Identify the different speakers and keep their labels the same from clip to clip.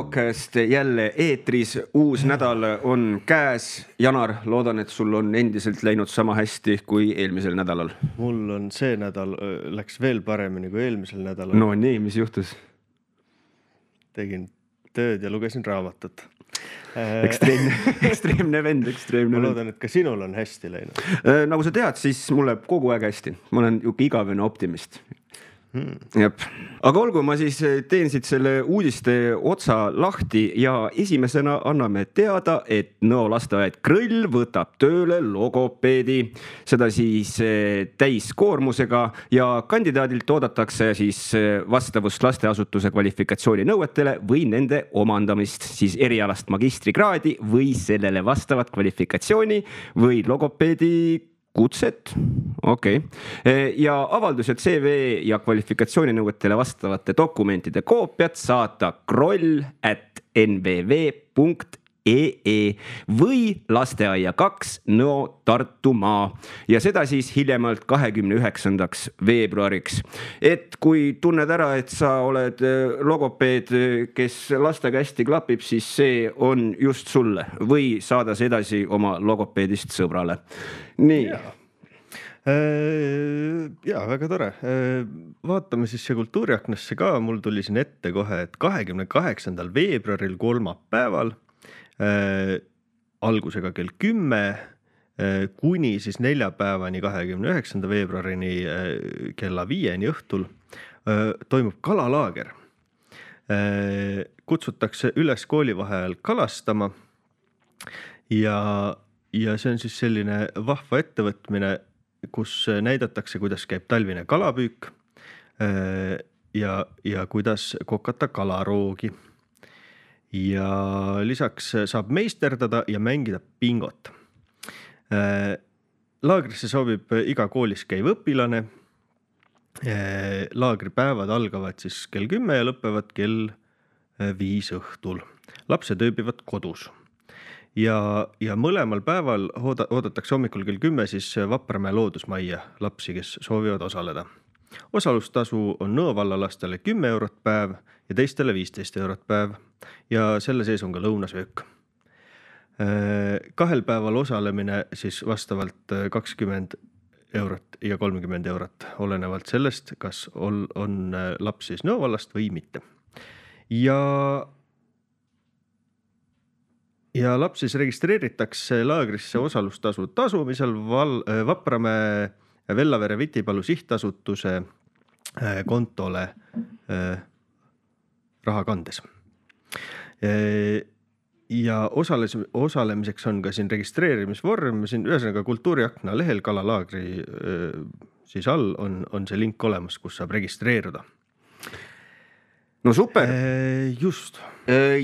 Speaker 1: Podcast jälle eetris, uus nädal on käes. Janar, loodan, et sul on endiselt läinud sama hästi kui eelmisel nädalal.
Speaker 2: Mul on see nädal, läks veel paremini kui eelmisel nädalal.
Speaker 1: No nii, mis juhtus?
Speaker 2: Tegin tööd ja lugesin raamatut.
Speaker 1: Ekstreemne vend.
Speaker 2: Ma loodan, et ka sinul on hästi läinud.
Speaker 1: Nagu sa tead, siis mul läheb kogu aeg hästi. Ma olen igavene optimist. Jep. Aga olgu, ma siis teen siit selle uudiste otsa lahti ja esimesena anname teada, et Nõo lasteaed Krõll võtab tööle logopeedi, seda siis täiskoormusega ja kandidaadilt oodatakse siis vastavust lasteasutuse kvalifikatsiooni nõuetele või nende omandamist siis erialast magistrikraadi või sellele vastavat kvalifikatsiooni või logopeedi kutset. Okei. Ja avaldused CV ja kvalifikatsiooninõuetele vastavate dokumentide koopiat saata kroll@nvv.ee või lasteaia 2 Nõo Tartumaa ja seda siis hiljemalt 29. veebruariks. Et kui tunned ära, et sa oled logopeed, kes lastega hästi klapib, siis see on just sulle või saada see edasi oma logopeedist sõbrale. Nii.
Speaker 2: Ja, väga tore. Vaatame siis see kultuuriaknasse ka. Mul tuli siin ette kohe, et 28. veebruaril kolmapäeval algusega kell 10 kuni siis neljapäevani 29. veebruarini kella 5 õhtul toimub kalalaager. Kutsutakse üles koolivaheajal kalastama ja see on siis selline vahva ettevõtmine, kus näidatakse, kuidas käib talvine kalapüük ja kuidas kokata kalaroogi. Ja lisaks saab meisterdada ja mängida bingot. Laagrisse soovib iga koolis käiv õpilane. Laagripäevad algavad siis kell 10 ja lõpevad kell 5 õhtul. Lapsed ööbivad kodus. Ja mõlemal päeval oodatakse hommikul kell 10 siis Vapramäe loodusmajja lapsi, kes soovivad osaleda. Osalustasu on Nõo vallalastele 10 eurot päev ja teistele 15 eurot päev ja selle sees on ka lõunasöök. 2 päeval osalemine siis vastavalt 20 eurot ja 30 eurot, olenevalt sellest, kas on laps siis Nõo vallast või mitte. Ja laps siis registreeritakse laagrisse osalustasu tasumisel Vapramäe Vellavere Vitipalu sihtasutuse kontole raha kandes. Ja osalemiseks on ka siin registreerimisvorm, siin ühesõnaga kultuuriakna lehel kalalaagri siis all on see link olemas, kus saab registreeruda.
Speaker 1: No super.
Speaker 2: Just.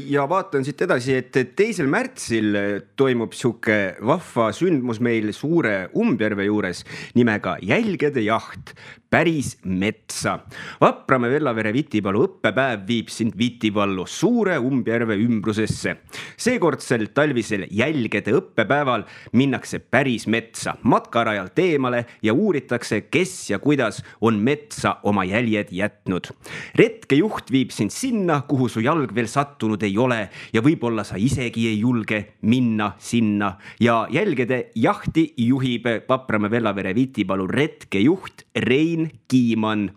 Speaker 1: Ja vaatan siit edasi, et 2. märtsil toimub siuke vahva sündmus meil Suure Umbjärve juures nimega Jälgede jaht päris metsa. Vapramäe Vellavere Vitipalu õppepäev viib sind Vitipallu Suure Umbjärve ümbrusesse. Seekordsel talvisel Jälgede õppepäeval minnakse päris metsa matkarajalt eemale ja uuritakse, kes ja kuidas on metsa oma jäljed jätnud. Retkejuht viib sind sinna, kuhu su jalg veel sattunud ei ole ja võib-olla sa isegi ei julge minna sinna. Ja Jälgede jahti juhib Vapramäe Vellavere Vitipalu retkejuht Rein Kiiman.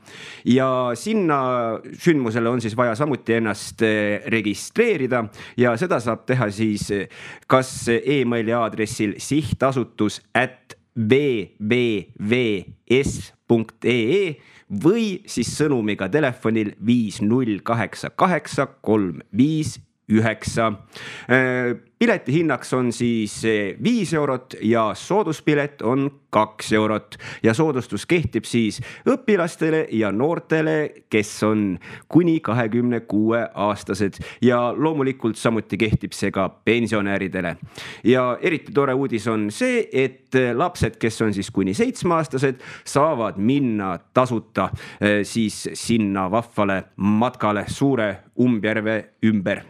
Speaker 1: Ja sinna sündmusele on siis vaja samuti ennast registreerida ja seda saab teha siis kas e-maili aadressil sihtasutus@vvvs.ee või siis sõnumiga telefonil 5088359. Pileti hinnaks on siis 5 eurot ja sooduspilet on 2 eurot ja soodustus kehtib siis õpilastele ja noortele, kes on kuni 26 aastased ja loomulikult samuti kehtib see ka pensionäridele. Ja eriti tore uudis on see, et lapsed, kes on siis kuni 7 aastased, saavad minna tasuta siis sinna vahvale matkale Suure Umbjärve ümber.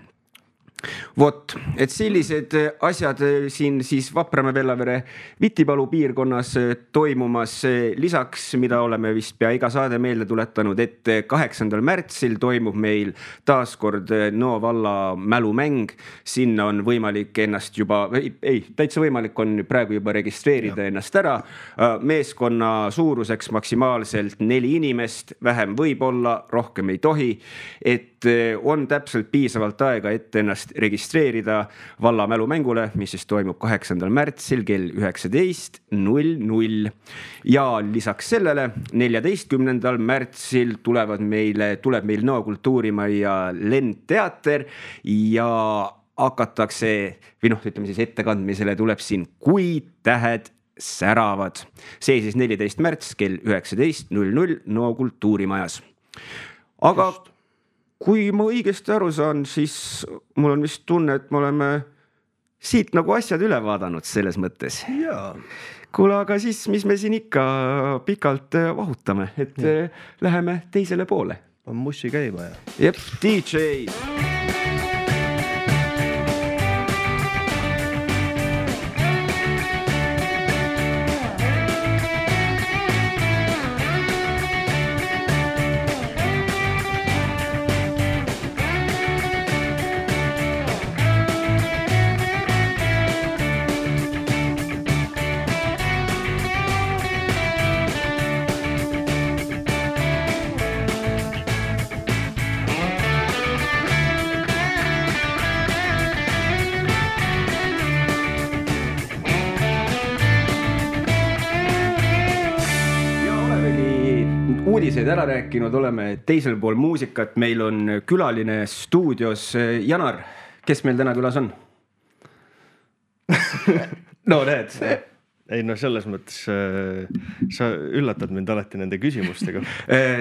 Speaker 1: Vot, et sellised asjad siin siis Vapramäe-Vellavere Vitipalu piirkonnas toimumas. Lisaks, mida oleme vist pea iga saade meelde tuletanud, et 8. märtsil toimub meil taaskord Nõo valla mälumäng. Sinna on võimalik ennast juba, täitsa võimalik on praegu juba registreerida ennast ära. Meeskonna suuruseks maksimaalselt 4 inimest, vähem võib olla, rohkem ei tohi. Et on täpselt piisavalt aega, et ennast registreerida valla mälumängule, mis siis toimub 8. märtsil kell 19:00. Ja lisaks sellele 14. märtsil tuleb meil Nõo kultuurimajja Lendteater ja hakatakse, või ütleme siis ettekandmisele tuleb siin Kui tähed säravad. See siis 14. märts kell 19:00 Nõo kultuurimajas. Aga kui ma õigesti aru saan, siis mul on vist tunne, et me oleme siit nagu asjad üle vaadanud selles mõttes.
Speaker 2: Jaa.
Speaker 1: Kuule, aga siis, mis me siin ikka pikalt vahutame, et läheme teisele poole.
Speaker 2: On mussi käima ja.
Speaker 1: Jep, DJ. Uudiseid ära rääkinud, oleme teisel pool muusikat, meil on külaline stuudios. Janar, kes meil täna külas on? No näed.
Speaker 2: Ei, selles mõttes sa üllatad mind alati nende küsimustega.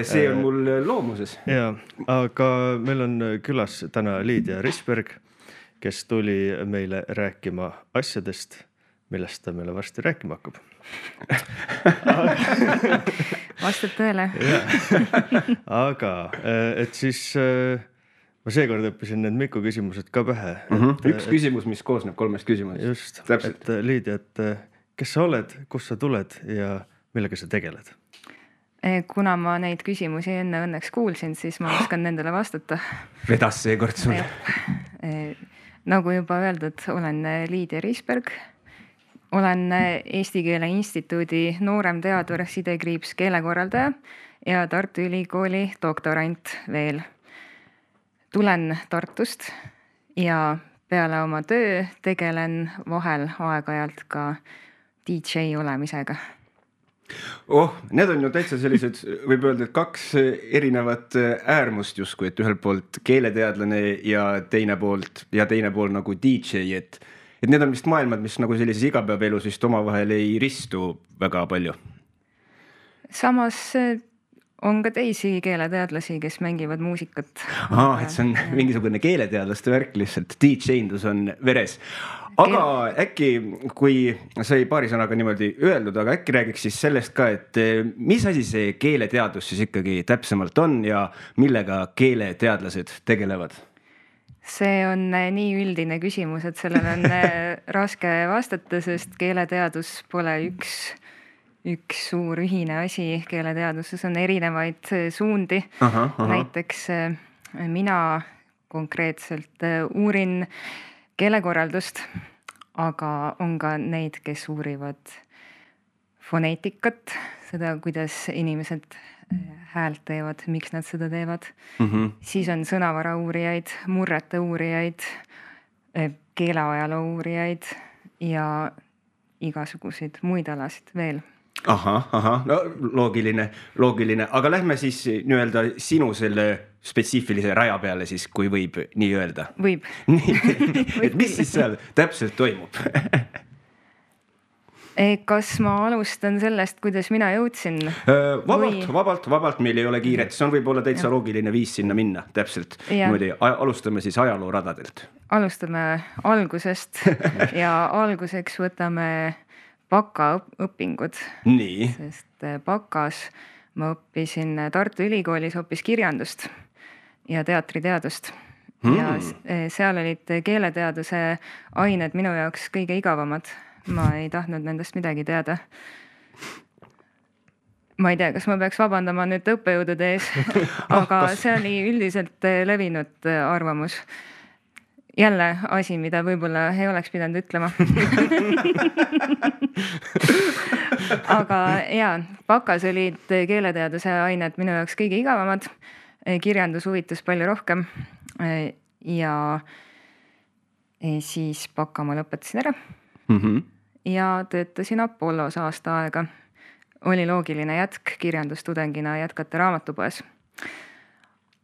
Speaker 1: See on mul loomuses.
Speaker 2: Ja, aga meil on külas täna Liidia Risberg, kes tuli meile rääkima asjadest, millest ta meile varsti rääkima hakkab.
Speaker 3: Vastab tõele.
Speaker 2: Aga et siis ma seekord õppisin need Miku küsimused ka pähe.
Speaker 1: Üks küsimus, mis koosneb 3 küsimusest.
Speaker 2: Just, et Liidia, et kes sa oled, kus sa tuled ja millega sa tegeled?
Speaker 3: Kuna ma neid küsimusi enne õnneks kuulsin, siis ma oskan nendele vastata.
Speaker 1: Vedas seekord sulle.
Speaker 3: Nagu juba öeldud, olen Liidia Risberg. Olen Eesti Keele Instituudi nooremteadur, sidekriips keelekorraldaja ja Tartu Ülikooli doktorant veel. Tulen Tartust ja peale oma töö tegelen vahel aeg-ajalt ka DJ olemisega.
Speaker 1: Need on ju täitsa sellised, võib öelda, et 2 erinevat äärmust justkui, et ühelt poolt keeleteadlane ja teine pool nagu DJ, et need on vist maailmad, mis nagu sellises igapäevaelus vist omavahel ei ristu väga palju.
Speaker 3: Samas on ka teisi keeleteadlasi, kes mängivad muusikat.
Speaker 1: Et see on mingisugune keeleteadlaste värk lihtsalt, DJ-ndus on veres. Aga äkki, kui sai paari sõnaga niimoodi öeldud, aga äkki räägiks siis sellest ka, et mis asi see keeleteadus siis ikkagi täpsemalt on ja millega keeleteadlased tegelevad?
Speaker 3: See on nii üldine küsimus, et sellele on raske vastata, sest keeleteadus pole üks suur ühine asi. Keeleteaduses on erinevaid suundi. Näiteks mina konkreetselt uurin keelekorraldust, aga on ka neid, kes uurivad foneetikat, seda, kuidas inimesed häält teevad, miks nad seda teevad. Siis on sõnavara uurijaid, murrete uurijaid, keeleajaloo uurijaid ja igasuguseid muid alasid veel.
Speaker 1: No loogiline, aga lähme siis nii-öelda sinu selle spetsiifilise raja peale siis, kui võib nii öelda.
Speaker 3: Võib.
Speaker 1: Et mis siis seal täpselt toimub?
Speaker 3: Kas ma alustan sellest, kuidas mina jõudsin?
Speaker 1: Vabalt, meil ei ole kiiret. See on võib-olla täitsa loogiline viis sinna minna, täpselt. Alustame siis ajalooradadelt.
Speaker 3: Alustame algusest ja alguseks võtame bakaõpingud.
Speaker 1: Nii.
Speaker 3: Sest bakas ma õppisin Tartu Ülikoolis hoopis kirjandust ja teatriteadust. ja seal olid keeleteaduse ained minu jaoks kõige igavamad. Ma ei tahtnud nendest midagi teada. Ma ei tea, kas ma peaks vabandama nüüd õppejõudude ees, aga see oli üldiselt levinud arvamus. Jälle asi, mida võib-olla ei oleks pidanud ütlema. Aga jaa, bakas olid keeleteaduse ained minu jaoks kõige igavamad. Kirjandus huvitus palju rohkem ja siis baka ma lõpetasin ära ja töötasin Apollos aasta aega. Oli loogiline jätk kirjandustudengina jätkata raamatupoes.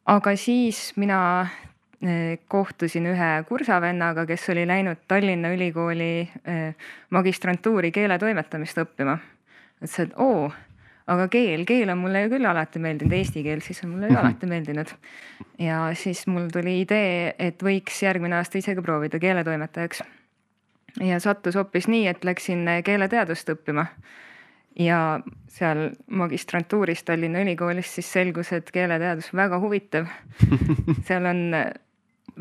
Speaker 3: Aga siis mina kohtusin ühe kursavennaga, kes oli läinud Tallinna Ülikooli magistrantuuri keeletoimetamist õppima. Ütles, et aga keel on mulle ju küll alati meeldinud, eesti keel siis on mulle ju alati meeldinud. Ja siis mul tuli idee, et võiks järgmine aasta isegi proovida keeletoimetajaks. Ja sattus hoopis nii, et läksin keeleteadust õppima. Ja seal magistrantuuris Tallinna Ülikoolis siis selgus, et keeleteadus väga huvitav. Seal on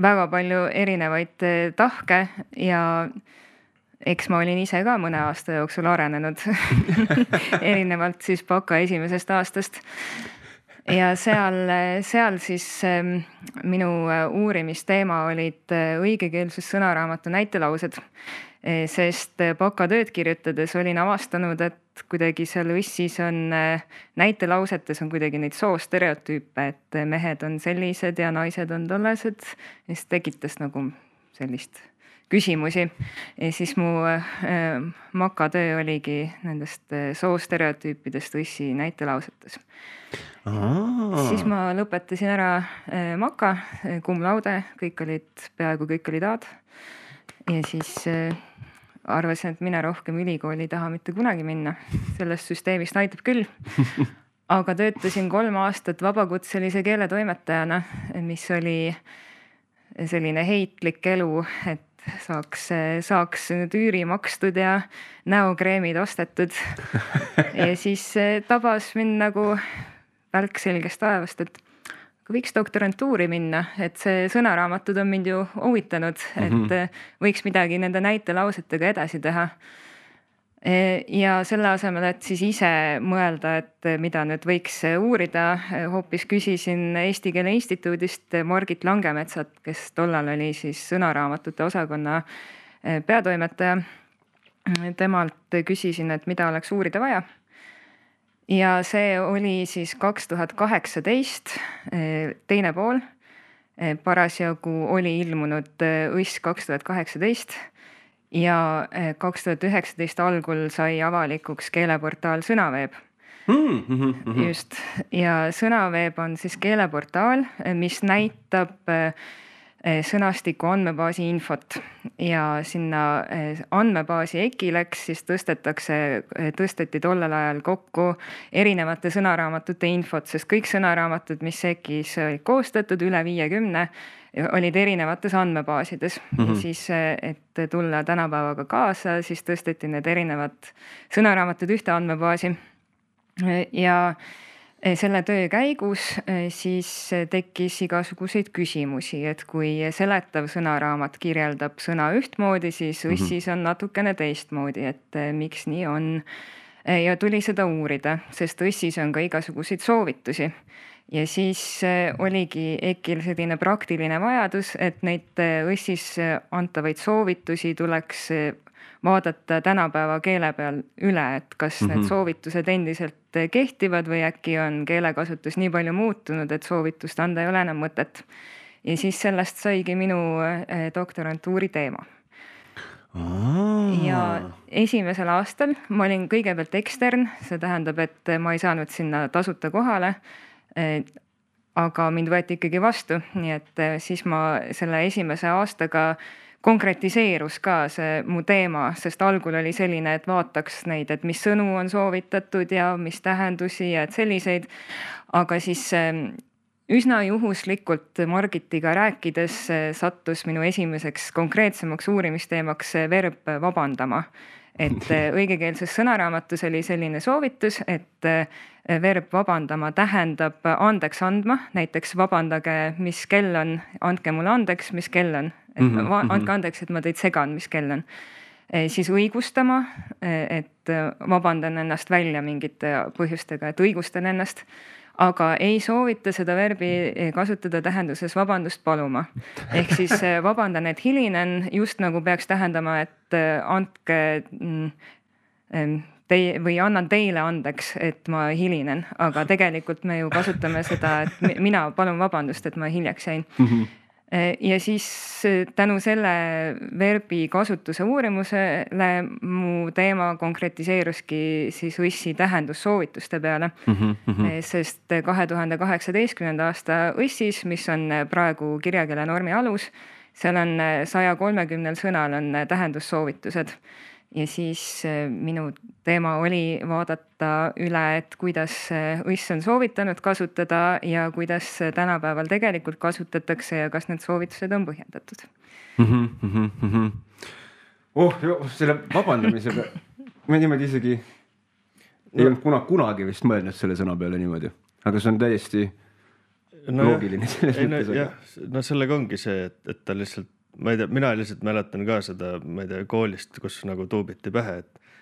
Speaker 3: väga palju erinevaid tahke ja eks ma olin ise ka mõne aasta jooksul arenenud erinevalt siis baka esimesest aastast. Ja seal siis minu uurimisteema olid õigekeelsus sõnaraamatu näitelaused, sest baka tööd kirjutades olin avastanud, et kuidagi seal Õssis on näitelausetes on kuidagi neid soostereotüüpe, et mehed on sellised ja naised on tollased, mis tekitas nagu sellist küsimusi. Ja siis mu makatöö oligi nendest soostereotüüpidest Õssi näitelausetes. Siis ma lõpetasin ära maka, cum laude, peaaegu kõik olid A-d. Ja siis arvasin, et mina rohkem ülikooli taha mitte kunagi minna. Sellest süsteemist aitab küll. Aga töötasin 3 aastat vabakutselise keeletoimetajana, mis oli selline heitlik elu, et saaks nüüd üüri makstud ja näokreemid ostetud. Ja siis tabas mind nagu välk selgest taevast, et võiks doktorantuuri minna, et see sõnaraamatud on mind ju huvitanud, et võiks midagi nende näitelausetega edasi teha. Ja selle asemel, et siis ise mõelda, et mida nüüd võiks uurida, hoopis küsisin Eesti Keele Instituudist Margit Langemetsat, kes tollal oli siis sõnaraamatute osakonna peatoimetaja. Temalt küsisin, et mida oleks uurida vaja. Ja see oli siis 2018, teine pool. Parasjagu oli ilmunud Õss 2018 ja 2019 algul sai avalikuks keeleportaal Sõnaveeb. Just. Ja Sõnaveeb on siis keeleportaal, mis näitab sõnastiku andmebaasi infot ja sinna andmebaasi EKI-leks siis tõsteti tollel ajal kokku erinevate sõnaraamatute infot, sest kõik sõnaraamatud, mis EKI-s olid koostatud, üle 50, olid erinevates andmebaasides. Ja siis, et tulla tänapäevaga kaasa, siis tõsteti need erinevad sõnaraamatud ühte andmebaasi ja selle töö käigus siis tekkis igasuguseid küsimusi, et kui seletav sõnaraamat kirjeldab sõna ühtmoodi, siis Õssis on natukene teistmoodi, et miks nii on. Ja tuli seda uurida, sest Õssis on ka igasuguseid soovitusi. Ja siis oligi EKI-l selline praktiline vajadus, et neid Õssis antavaid soovitusi tuleks vaadata tänapäeva keele peal üle, et kas need soovitused endiselt kehtivad või äkki on keelekasutus nii palju muutunud, et soovitust anda ei ole enam mõtet. Ja siis sellest saigi minu doktorantuuri teema. Ja esimesel aastal ma olin kõigepealt ekstern, see tähendab, et ma ei saanud sinna tasuta kohale, aga mind võeti ikkagi vastu, nii et siis ma selle esimese aastaga konkretiseerus ka see mu teema, sest algul oli selline, et vaataks neid, et mis sõnu on soovitatud ja mis tähendusi ja et selliseid, aga siis üsna juhuslikult Margitiga rääkides sattus minu esimeseks konkreetsemaks uurimisteemaks verb vabandama. et õigekeelses sõnaraamatus oli selline soovitus, et verb vabandama tähendab andeks andma, näiteks vabandage, mis kell on, andke mulle andeks, mis kell on, et andke andeks, et ma teid segan, mis kell on. Siis õigustama, et vabandan ennast välja mingite põhjustega, et õigustan ennast, aga ei soovita seda verbi kasutada tähenduses vabandust paluma. Ehk siis vabandan, et hilinen just nagu peaks tähendama, et andke või annan teile andeks, et ma hilinen, aga tegelikult me ju kasutame seda, et mina palun vabandust, et ma hiljaks jäin. Ja siis tänu selle verbi kasutuse uurimusele mu teema konkretiseeruski siis õssi tähendussoovituste peale, sest 2018. aasta õssis, mis on praegu kirjakeele normi alus, seal on 130 sõnal on tähendussoovitused. Ja siis minu teema oli vaadata üle, et kuidas õss on soovitanud kasutada ja kuidas tänapäeval tegelikult kasutatakse ja kas need soovitused on põhjendatud.
Speaker 1: Selle vabandamisega ma niimoodi isegi ei olnud kunagi vist mõelnud selle sõna peale niimoodi, aga see on täiesti loogiline selles mõttes.
Speaker 2: No sellega ongi see, et ta lihtsalt ma ei tea, mina lihtsalt mäletan ka seda, ma ei tea, koolist, kus nagu tuubiti pähe,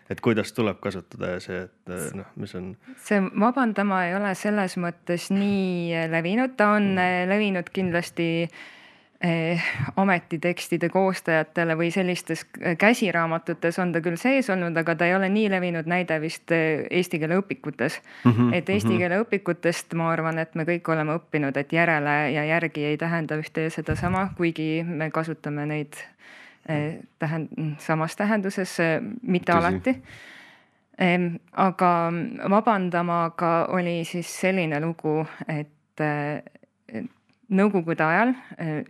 Speaker 2: et kuidas tuleb kasutada ja see, et mis on.
Speaker 3: See vabandama ei ole selles mõttes nii levinud, ta on levinud kindlasti ametitekstide koostajatele või sellistes käsiraamatutes on ta küll sees olnud, aga ta ei ole nii levinud näide vist eesti keele õpikutes. Et eesti keele õpikutest ma arvan, et me kõik oleme õppinud, et järele ja järgi ei tähenda ühte ja seda sama, kuigi me kasutame neid samas tähenduses, mitte alati. Aga vabandamaga oli siis selline lugu, et Nõukogude ajal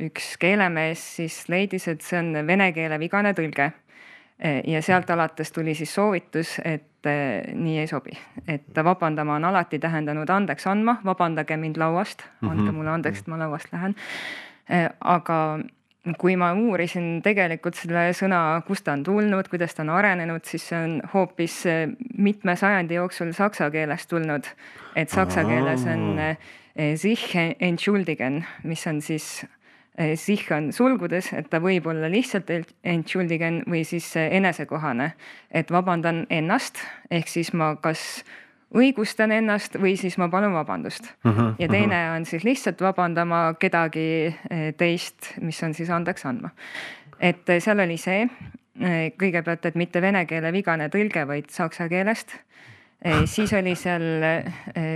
Speaker 3: üks keelemees siis leidis, et see on vene keele vigane tõlge ja sealt alates tuli siis soovitus, et nii ei sobi, et vabandama on alati tähendanud andeks andma, vabandage mind lauast, andke mulle andeks, et ma lauast lähen. Aga kui ma uurisin tegelikult selle sõna, kust ta on tulnud, kuidas ta on arenenud, siis see on hoopis mitme sajandi jooksul saksa keelest tulnud, et saksa keeles on sich entschuldigen, mis on siis sich on sulgudes, et ta võib olla lihtsalt entschuldigen või siis enesekohane, et vabandan ennast, ehk siis ma kas õigustan ennast või siis ma palun vabandust. Ja teine on siis lihtsalt vabandama kedagi teist, mis on siis andeks andma. Et seal oli see kõigepealt, et mitte vene keele vigane tõlge, vaid saksa keelest. Siis oli seal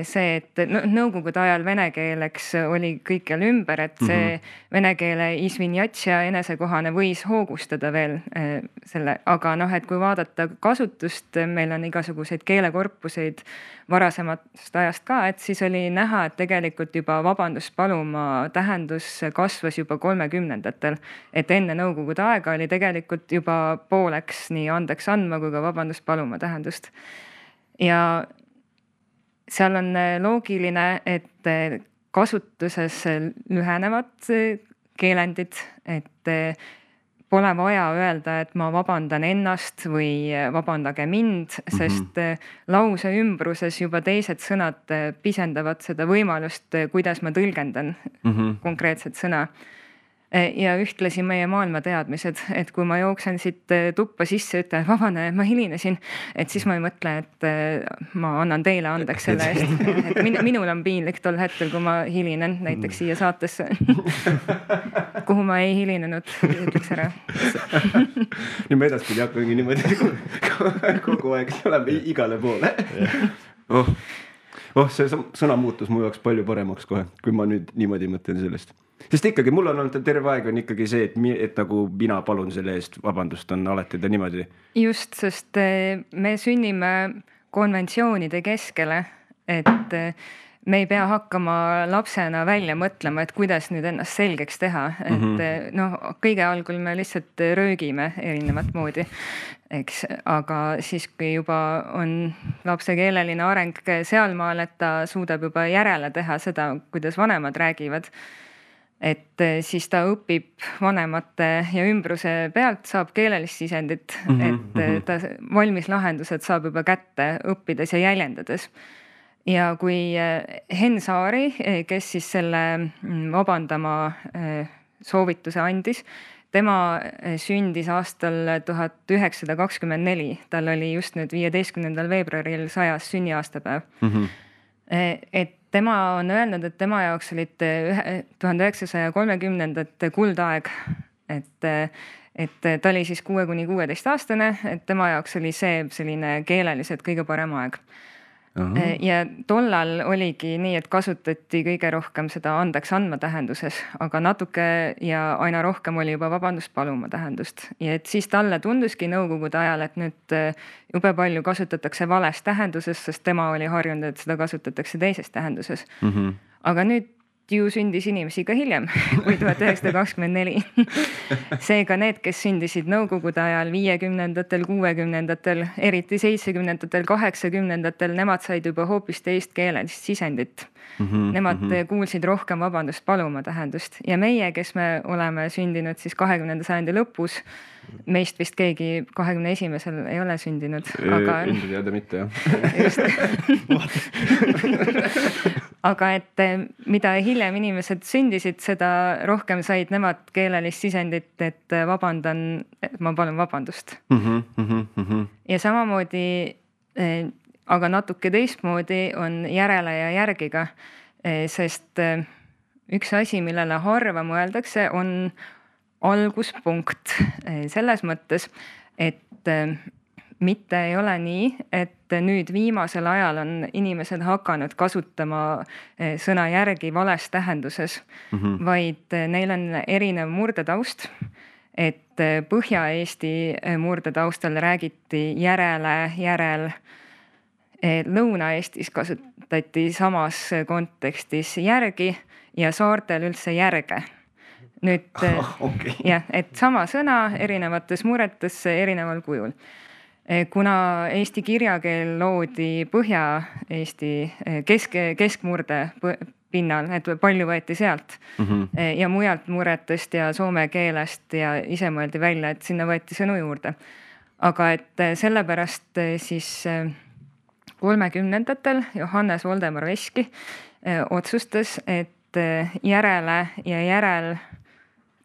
Speaker 3: see, et nõukogude ajal vene keeleks oli kõikjal ümber, et see vene keele isvinjatsia enesekohane võis hoogustada veel selle, aga et kui vaadata kasutust, meil on igasuguseid keelekorpuseid varasemast ajast ka, et siis oli näha, et tegelikult juba vabandust paluma tähendus kasvas juba 30-ndatel, et enne nõukogude aega oli tegelikult juba pooleks nii andeks andma kui ka vabandust paluma tähendust. Ja seal on loogiline, et kasutuses lühenevad keelendid, et pole vaja öelda, et ma vabandan ennast või vabandage mind, sest lause ümbruses juba teised sõnad pisendavad seda võimalust, kuidas ma tõlgendan konkreetset sõna. Ja ühtlasi meie maailma teadmised, et kui ma jooksen siit tuppa sisse, ütlen vabane, ma hilinesin, et siis ma ei mõtle, et ma annan teile andeks selle eest. Et minul on piinlik tol hetkel, kui ma hilinen näiteks siia saatesse, kuhu ma ei hilinenud, ütleks ära.
Speaker 1: Nüüd me edaspidi hakkangi niimoodi kogu aeg oleme igale poole. See sõna muutus mu jaoks palju paremaks kohe, kui ma nüüd niimoodi mõtlen sellest. Sest ikkagi mul on olnud terve aeg on ikkagi see, et nagu mina palun selle eest vabandust on alati ta niimoodi.
Speaker 3: Just, sest me sünnime konventsioonide keskele, et me ei pea hakkama lapsena välja mõtlema, et kuidas nüüd ennast selgeks teha. Et kõige algul me lihtsalt röögime erinevat moodi, eks, aga siis kui juba on lapse keeleline areng sealmaal, et ta suudab juba järele teha seda, kuidas vanemad räägivad, et siis ta õpib vanemate ja ümbruse pealt, saab keelelist sisendit, et ta valmis lahendused saab juba kätte õppides ja jäljendades. Ja kui Henn Saari, kes siis selle vabandama soovituse andis, tema sündis aastal 1924, tal oli just nüüd 15. veebruaril 100. sünniaastapäev. Et tema on öelnud, et tema jaoks olid 1930. kuldaeg, et ta oli siis 6–16 aastane, et tema jaoks oli see selline keeleliselt kõige parem aeg. Ja tollal oligi nii, et kasutati kõige rohkem seda andeks andma tähenduses, aga natuke ja aina rohkem oli juba vabandust paluma tähendust. Ja et siis talle tunduski nõukogude ajal, et nüüd jube palju kasutatakse vales tähenduses, sest tema oli harjunud, et seda kasutatakse teises tähenduses. Aga nüüd ju sündis inimesi ka hiljem, kui 1924. Seega need, kes sündisid nõukogude ajal 50-ndatel, 60-ndatel, eriti 70-ndatel, 80-ndatel, nemad said juba hoopis teist keelelist sisendit. Nemad kuulsid rohkem vabandust paluma tähendust. Ja meie, kes me oleme sündinud siis 20. sajandi lõpus, meist vist keegi 21. ei ole sündinud. Aga
Speaker 1: enda teada mitte, jah.
Speaker 3: Aga et mida hiljem inimesed sündisid, seda rohkem said nemad keelelist sisendit, et vabandan, et ma palun vabandust. Ja samamoodi, aga natuke teistmoodi on järele ja järgiga, sest üks asi, millele harva mõeldakse, on alguspunkt selles mõttes, et mitte ei ole nii, et nüüd viimasel ajal on inimesed hakanud kasutama sõna järgi vales tähenduses, vaid neil on erinev murdetaust, et Põhja-Eesti murdetaustal räägiti järele, järel. Lõuna-Eestis kasutati samas kontekstis järgi ja saartel üldse järge. Nüüd, jah, et sama sõna erinevates murretes erineval kujul. Kuna eesti kirjakeel loodi Põhja-Eesti keskmurde pinnal, et palju võeti sealt ja mujalt murretest ja soome keelest ja ise mõeldi välja, et sinna võeti sõnu juurde. Aga et sellepärast siis 30-ndatel Johannes Voldemar Veski otsustas, et järele ja järel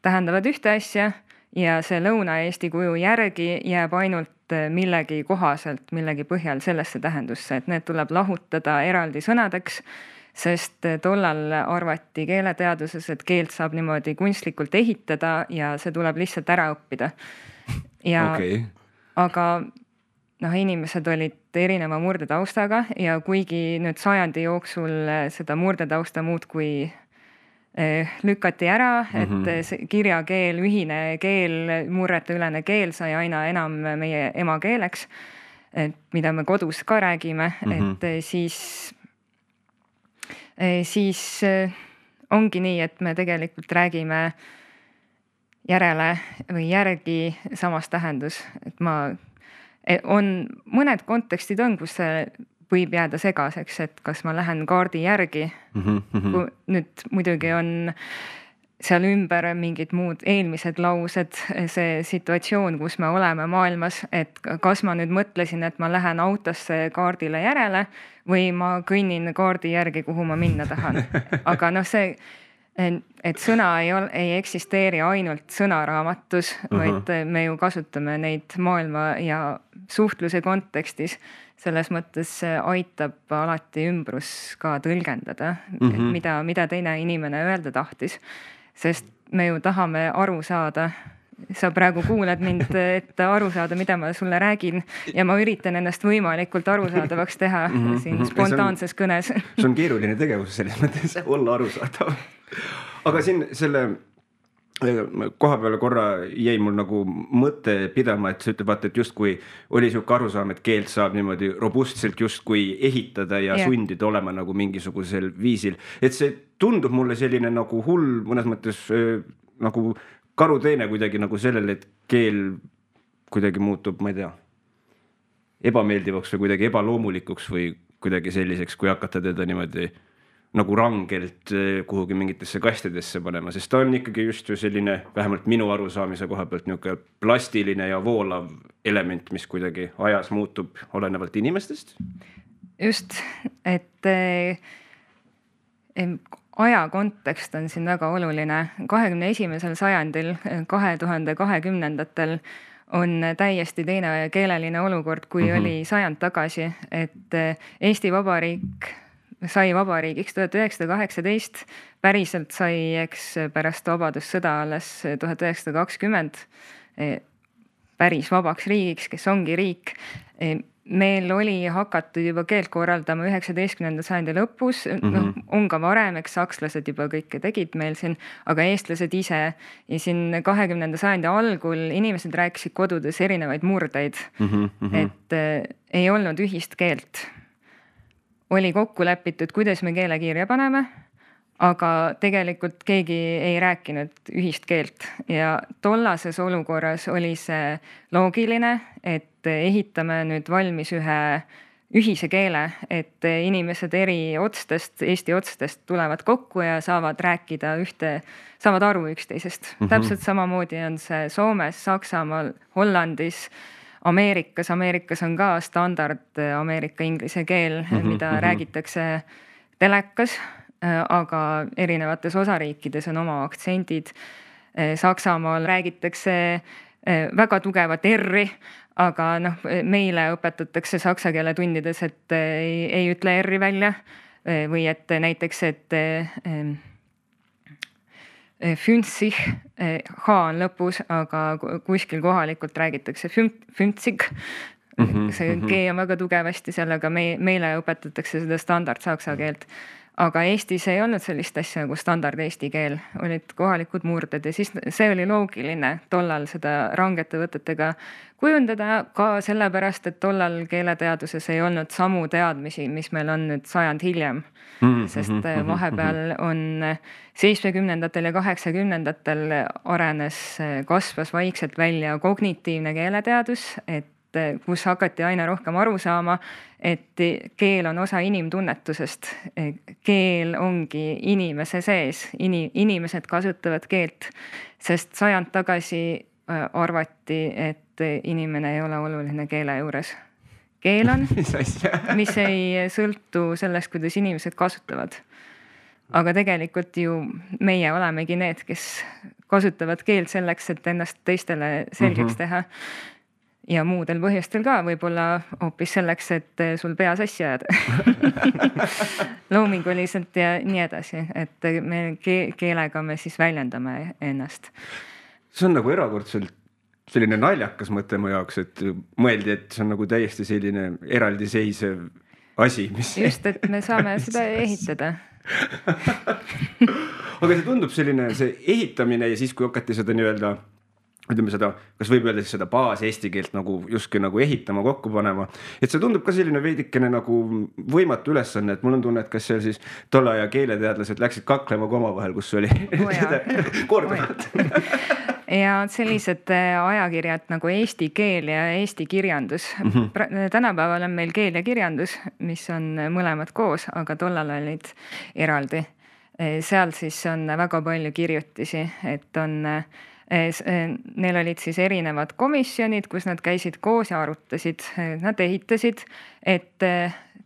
Speaker 3: tähendavad ühte asja ja see Lõuna-Eesti kuju järgi jääb ainult millegi kohaselt, millegi põhjal sellesse tähendusse, et need tuleb lahutada eraldi sõnadeks, sest tollal arvati keeleteaduses, et keelt saab niimoodi kunstlikult ehitada ja see tuleb lihtsalt ära õppida. Ja, aga inimesed olid erineva murdetaustaga ja kuigi nüüd sajandi jooksul seda murdetausta muudkui lükati ära, et kirjakeel, ühine keel, murreteülene keel sai aina enam meie emakeeleks, mida me kodus ka räägime, et siis ongi nii, et me tegelikult räägime järele või järgi samas tähendus, et on mõned kontekstid on, kus see võib jääda segaseks, et kas ma lähen kaardi järgi. Nüüd muidugi on seal ümber mingid muud eelmised laused, see situatsioon, kus me oleme maailmas, et kas ma nüüd mõtlesin, et ma lähen autosse kaardile järele või ma kõnnin kaardi järgi, kuhu ma minna tahan. Aga see, et sõna ei eksisteeri ainult sõnaraamatus, vaid me ju kasutame neid maailma ja suhtluse kontekstis. Selles mõttes aitab alati ümbrus ka tõlgendada, mida teine inimene öelda tahtis. Sest me ju tahame aru saada. Sa praegu kuulad mind, et aru saada, mida ma sulle räägin ja ma üritan ennast võimalikult arusaadavaks teha siin spontaanses kõnes.
Speaker 1: See on keeruline tegevus selles mõttes olla arusaadav. Aga siin selle koha peale korra jäi mul nagu mõte pidama, et sa ütled, vaata, et justkui oli siuke arusaam, et keelt saab niimoodi robustselt justkui ehitada ja sundida olema nagu mingisugusel viisil. Et see tundub mulle selline nagu hull mõnes mõttes nagu karuteene kuidagi nagu sellele, et keel kuidagi muutub, ma ei tea, ebameeldivaks või kuidagi ebaloomulikuks või kuidagi selliseks, kui hakata teda niimoodi nagu rangelt kuhugi mingitesse kastidesse panema, sest ta on ikkagi just ju selline, vähemalt minu arusaamise koha pealt niisugune plastiline ja voolav element, mis kuidagi ajas muutub olenevalt inimestest.
Speaker 3: Just, et aja kontekst on siin väga oluline. 21. sajandil, 2020-ndatel on täiesti teine keeleline olukord, kui oli sajand tagasi, et Eesti Vabariik sai vabariigiks 1918, päriselt sai eks pärast vabadussõda alles 1920 päris vabaks riigiks, kes ongi riik. Meil oli hakatud juba keelt korraldama 19. sajandi lõpus, on ka varem, eks sakslased juba kõike tegid meil siin, aga eestlased ise ja siin 20. sajandi algul inimesed rääkisid kodudes erinevaid murdeid, et ei olnud ühist keelt. Oli kokku lepitud, kuidas me keele kirja paneme, aga tegelikult keegi ei rääkinud ühist keelt ja tollases olukorras oli see loogiline, et ehitame nüüd valmis ühe ühise keele, et inimesed eri otstest, Eesti otstest tulevad kokku ja saavad rääkida saavad aru üksteisest. Täpselt samamoodi on see Soomes, Saksamaal, Hollandis, Ameerikas on ka standard Ameerika inglise keel, mida räägitakse telekas, aga erinevates osariikides on oma aktsendid. Saksamaal räägitakse väga tugevat R-i, aga meile õpetatakse saksa keele tundides, et ei ütle R-i välja või et näiteks, et füntsig, H on lõpus, aga kuskil kohalikult räägitakse füntsig. See G on väga tugevasti seal, aga meile õpetatakse seda standard saksa keelt. Aga Eestis ei olnud sellist asja nagu standard eesti keel, olid kohalikud murded ja siis see oli loogiline tollal seda rangete võtetega kujundada ka sellepärast, et tollal keeleteaduses ei olnud samu teadmisi, mis meil on nüüd sajand hiljem. Sest vahepeal on 70-ndatel ja 80-ndatel kasvas vaikselt välja kognitiivne keeleteadus, et kus hakati aina rohkem aru saama, et keel on osa inimtunnetusest. Keel ongi inimese sees, inimesed kasutavad keelt, sest sajand tagasi arvati, et inimene ei ole oluline keele juures. Keel on, mis ei sõltu sellest, kuidas inimesed kasutavad. Aga tegelikult ju meie olemegi need, kes kasutavad keelt selleks, et ennast teistele selgeks teha. Ja muudel põhjustel ka, võib-olla hoopis selleks, et sul pea sassi ajada. Loominguliselt ja nii edasi, et me keelega me siis väljendame ennast.
Speaker 1: See on nagu erakordselt selline naljakas mõte mu jaoks, et mõeldi, et see on nagu täiesti selline eraldiseisev asi, mis...
Speaker 3: Just, et me saame seda ehitada.
Speaker 1: Aga see tundub selline see ehitamine ja siis, kui hakati seda nii-öelda ütleme seda, kas võib öelda seda baas eesti keelt nagu justkui nagu ehitama, kokku panema. Et see tundub ka selline veidikene nagu võimatu ülesanne, et mul on tunne, et kas seal siis tolle aja keeleteadlased läksid kaklema ka omavahel, kus oli korduvalt.
Speaker 3: Ja sellised ajakirjad nagu Eesti keel ja Eesti kirjandus. Tänapäeval on meil keel ja kirjandus, mis on mõlemad koos, aga tollal olid eraldi. Seal siis on väga palju kirjutisi, et on... Neil olid siis erinevad komisjonid, kus nad käisid koos ja arutasid. Nad ehitasid, et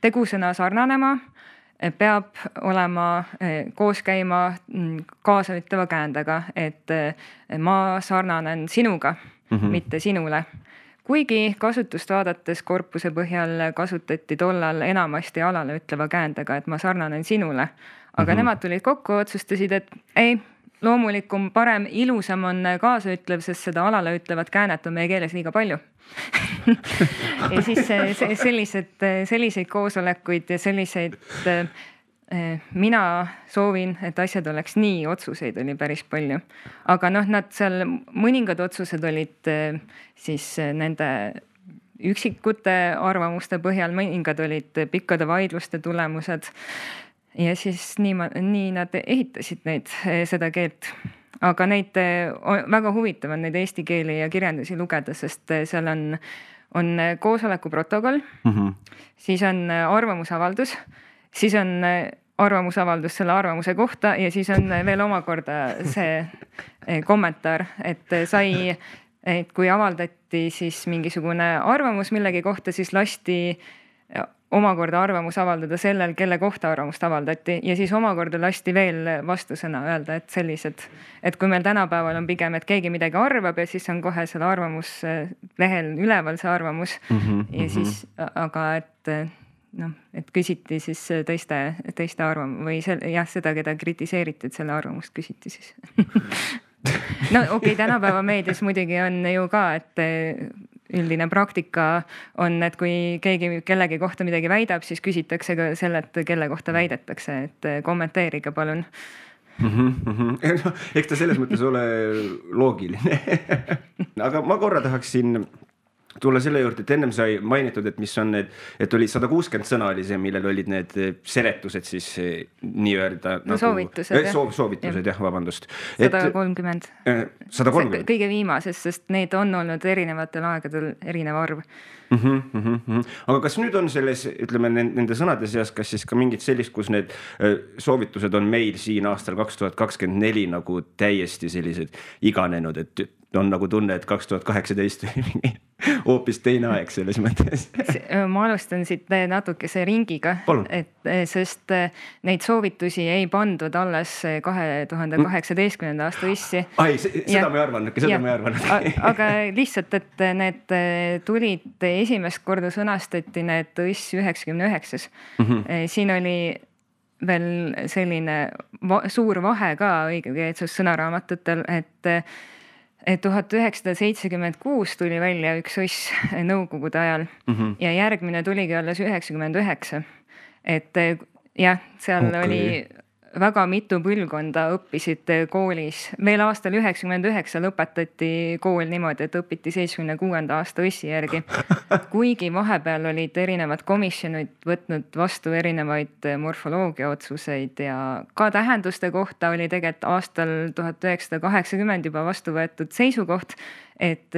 Speaker 3: tegusõna sarnanema peab olema koos käima kaasaütleva käändega, et ma sarnanen sinuga, mitte sinule. Kuigi kasutust vaadates korpuse põhjal kasutati tollal enamasti alale ütleva käändega, et ma sarnanen sinule. Aga nemad tulid kokku, otsustasid, et ei, loomulikum, parem, ilusam on kaasaütlev, sest seda alale ütlevat käänet on meie keeles liiga palju. Ja siis selliseid koosolekuid ja selliseid, mina soovin, et asjad oleks nii, otsuseid oli päris palju. Aga nad seal mõningad otsused olid siis nende üksikute arvamuste põhjal, mõningad olid pikkade vaidluste tulemused. Ja siis nii nad ehitasid seda keelt. Aga neid väga huvitav on neid eesti keeli ja kirjandusi lugeda, sest seal on koosoleku protokoll, siis on arvamusavaldus, siis on arvamusavaldus selle arvamuse kohta ja siis on veel omakorda see kommentaar, et kui avaldati siis mingisugune arvamus millegi kohta, siis lasti omakorda arvamus avaldada sellel, kelle kohta arvamust avaldati ja siis omakorda lasti veel vastusõna öelda, et sellised, et kui meil tänapäeval on pigem, et keegi midagi arvab ja siis on kohe selle arvamuslehel üleval see arvamus ja siis, aga et küsiti siis teiste arvamus või seda, keda kritiseeriti, et selle arvamust küsiti siis. No okei, tänapäeva meedias muidugi on ju ka, et üldine praktika on, et kui keegi kellegi kohta midagi väidab, siis küsitakse ka selle, et kelle kohta väidetakse, et kommenteerige palun.
Speaker 1: Eks ta selles mõttes ole loogiline. Aga ma korra tahaksin tulla selle juurde, et ennem sai mainitud, et mis on need, et oli 160 sõna oli see, millel olid need seletused siis nii-öelda
Speaker 3: soovitused,
Speaker 1: soovitused, vabandust.
Speaker 3: 130.
Speaker 1: 130.
Speaker 3: Kõige viimases, sest neid on olnud erinevatel aegadel erinev arv.
Speaker 1: Aga kas nüüd on selles, ütleme, nende sõnade seas, kas siis ka mingid sellist, kus need soovitused on meil siin aastal 2024 nagu täiesti sellised iganenud, et on nagu tunne, et 2018 oli hoopis teine aeg selles mõttes.
Speaker 3: Ma alustan siit natukese ringiga, sest neid soovitusi ei pandud alles 2018. aasta õssi.
Speaker 1: Seda ma ei arvanud.
Speaker 3: Aga lihtsalt, et need tulid esimest korda sõnastati need õss 99. Siin oli veel selline suur vahe ka õigekeelsus sõnaraamatutel, et 1976 tuli välja üks õss nõukogude ajal ja järgmine tuligi alles 99. Et jah, seal oli väga mitu põlvkonda õppisid koolis. Veel aastal 99 lõpetati kool niimoodi, et õpiti 76. aasta õssi järgi. Kuigi vahepeal olid erinevad komisjonid võtnud vastu erinevaid morfoloogia otsuseid ja ka tähenduste kohta oli tegelikult aastal 1980 juba vastu võetud seisukoht, et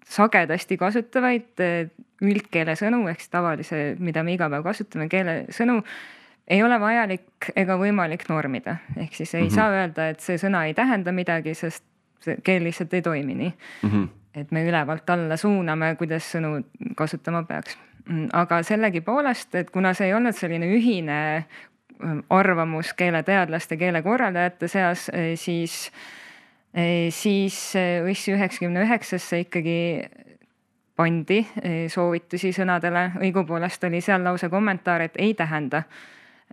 Speaker 3: sagedasti kasutavaid üldkeele sõnu, ehk tavalise, mida me iga päev kasutame, keele sõnu, ei ole vajalik ega võimalik normida. Ehk siis ei saa öelda, et see sõna ei tähenda midagi, sest keel lihtsalt ei toimi nii. Et me ülevalt alla suuname, kuidas sõnu kasutama peaks. Aga sellegi poolest, et kuna see ei olnud selline ühine arvamus keeleteadlaste, keelekorraldajate seas, siis õss 99 ikkagi pandi soovitusi sõnadele. Õigupoolest oli seal lausa kommentaar, et ei tähenda.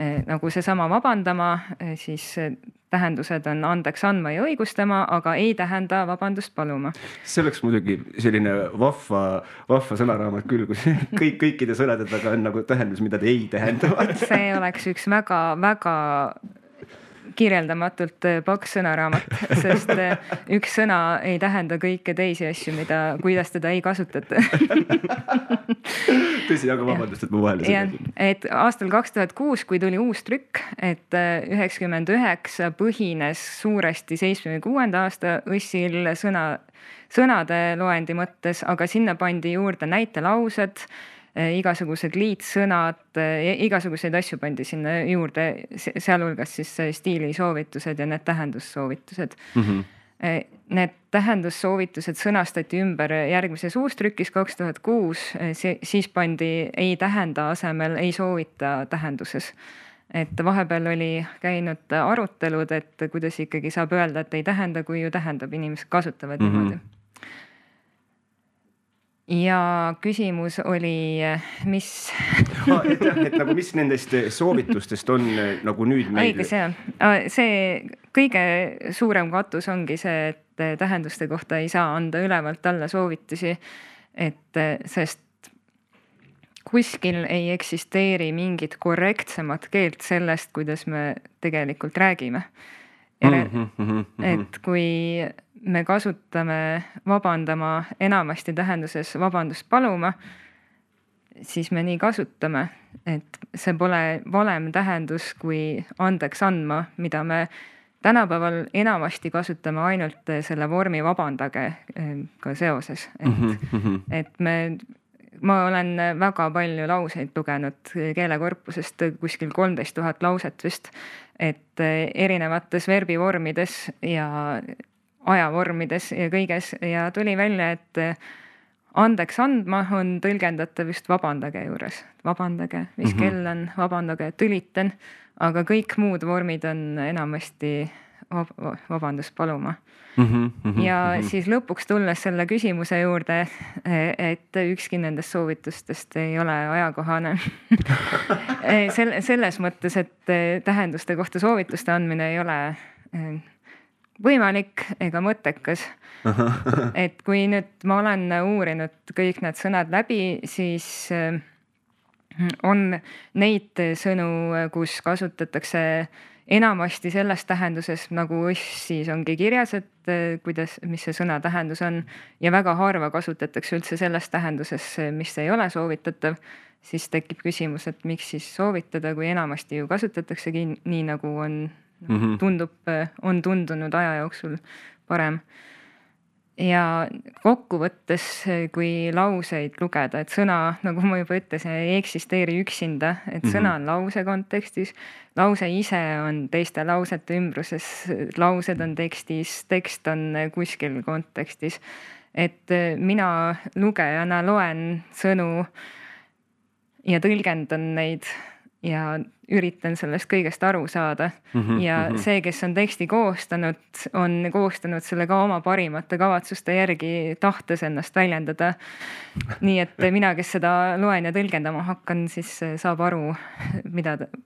Speaker 3: Nagu see sama vabandama, siis tähendused on andeks andma ja õigustama, aga ei tähenda vabandust paluma.
Speaker 1: See oleks muidugi selline vahva sõnaraamat küll, kus kõikide sõnade taga on nagu tähendus, mida te ei tähendavad.
Speaker 3: See oleks üks väga kirjeldamatult paks sõnaraamat, sest üks sõna ei tähenda kõike teisi asju, kuidas teda ei kasutata.
Speaker 1: Tõsi, aga vabandust, et ma vahele
Speaker 3: seda. Et aastal 2006, kui tuli uus trükk, et 99 põhines suuresti 76. aasta õssil sõnade loendi mõttes, aga sinna pandi juurde näitelaused, igasugused liitsõnad, igasuguseid asju pandi sinna juurde, sealhulgas siis stiilisoovitused ja need tähendussoovitused. Need tähendussoovitused sõnastati ümber järgmises uustrükis 2006, siis pandi ei tähenda asemel ei soovita tähenduses. Et vahepeal oli käinud arutelud, et kuidas ikkagi saab öelda, et ei tähenda, kui ju tähendab, inimesed kasutavad niimoodi. Ja küsimus oli, mis...
Speaker 1: et nagu mis nendest soovitustest on nagu nüüd meil...
Speaker 3: Õige see kõige suurem katus ongi see, et tähenduste kohta ei saa anda ülevalt alla soovitusi, sest kuskil ei eksisteeri mingit korrektsemat keelt sellest, kuidas me tegelikult räägime. Et kui me kasutame vabandama enamasti tähenduses vabandust paluma, siis me nii kasutame, et see pole valem tähendus kui andeks andma, mida me tänapäeval enamasti kasutame ainult selle vormi vabandage ka seoses. Et me ma olen väga palju lauseid lugenud keelekorpusest, kuskil 13 000 lauset vist, et erinevates verbivormides ja ajavormides ja kõiges ja tuli välja, et andeks andma on tõlgendatav just vabandage juures. Vabandage, mis kell on, vabandage, tülitan, aga kõik muud vormid on enamasti vabandust paluma. Ja siis lõpuks tulles selle küsimuse juurde, et ükski nendest soovitustest ei ole ajakohane. Selles mõttes, et tähenduste kohta soovituste andmine ei ole võimalik ega mõttekas. Et kui nüüd ma olen uurinud kõik need sõnad läbi, siis on neid sõnu, kus kasutatakse enamasti selles tähenduses, nagu siis ongi kirjas, et mis see sõna tähendus on ja väga harva kasutatakse üldse selles tähenduses, mis ei ole soovitatav, siis tekib küsimus, et miks siis soovitada, kui enamasti ju kasutataksegi nii, nagu on tundunud aja jooksul parem. Ja kokkuvõttes, kui lauseid lugeda, et sõna, nagu ma juba ütlesin, ei eksisteeri üksinda, et sõna on lause kontekstis, lause ise on teiste lausete ümbruses, laused on tekstis, tekst on kuskil kontekstis. Et mina lugejana loen sõnu ja tõlgendan neid ja üritan sellest kõigest aru saada. Ja see, kes on teksti koostanud, on koostanud selle ka oma parimate kavatsuste järgi, tahtes ennast väljendada. Nii et mina, kes seda loen ja tõlgendama hakkan, siis saab aru,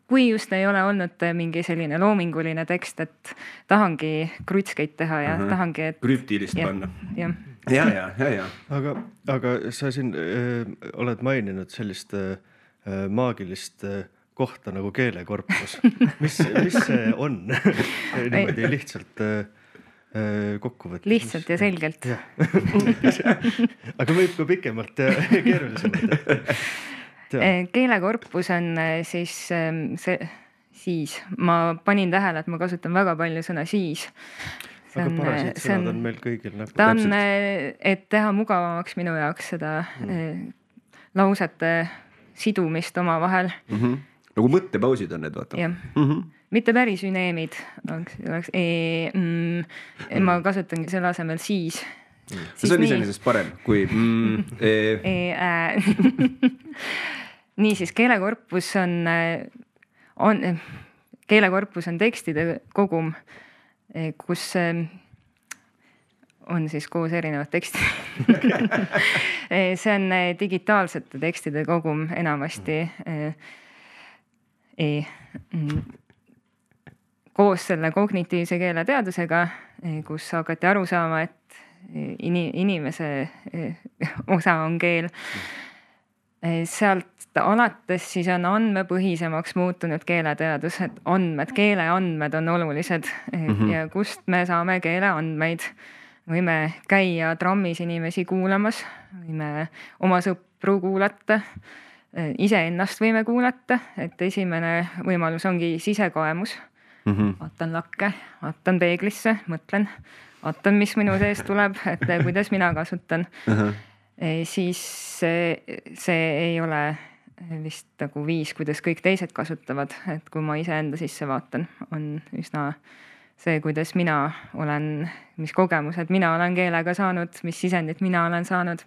Speaker 3: kui just ei ole olnud mingi selline loominguline tekst, et tahangi krutskeid teha ja tahangi, et
Speaker 1: krüptilist panna.
Speaker 3: Ja.
Speaker 2: Aga sa siin oled maininud sellist maagilist kohta nagu keelekorpus. Mis see on? Niimoodi lihtsalt kokku võtta.
Speaker 3: Lihtsalt ja selgelt.
Speaker 2: Aga võib ka pikemalt keerulisemalt.
Speaker 3: Keelekorpus on siis, ma panin tähele, et ma kasutan väga palju sõna siis.
Speaker 2: Aga parasiit sõnad on meil kõigil.
Speaker 3: Ta on, et teha mugavamaks minu jaoks seda lausete sidumist oma vahel.
Speaker 1: Nagu mõttepausid on need, vaata.
Speaker 3: Mitte päris üneemid. Ma kasutangi selle asemel siis.
Speaker 1: See on iseenesest parem kui
Speaker 3: Niisiis, keelekorpus on tekstide kogum, kus on siis koos erinevad tekstid. See on digitaalsete tekstide kogum enamasti koos selle kognitiivse keeleteadusega, kus hakati aru saama, et inimese osa on keel. Sealt alates siis on andmepõhisemaks muutunud keeleteadus, et keeleandmed on olulised ja kust me saame keeleandmeid. Võime käia trammis inimesi kuulamas, võime oma sõpru kuulata, iseennast võime kuulata, et esimene võimalus ongi sisekaemus. Vaatan lakke, vaatan peeglisse, mõtlen, vaatan, mis minu sees tuleb, et kuidas mina kasutan. Siis see ei ole vist nagu viis, kuidas kõik teised kasutavad, et kui ma iseenda sisse vaatan, on üsna see, kuidas mina olen, mis kogemused mina olen keelega saanud, mis sisendit mina olen saanud.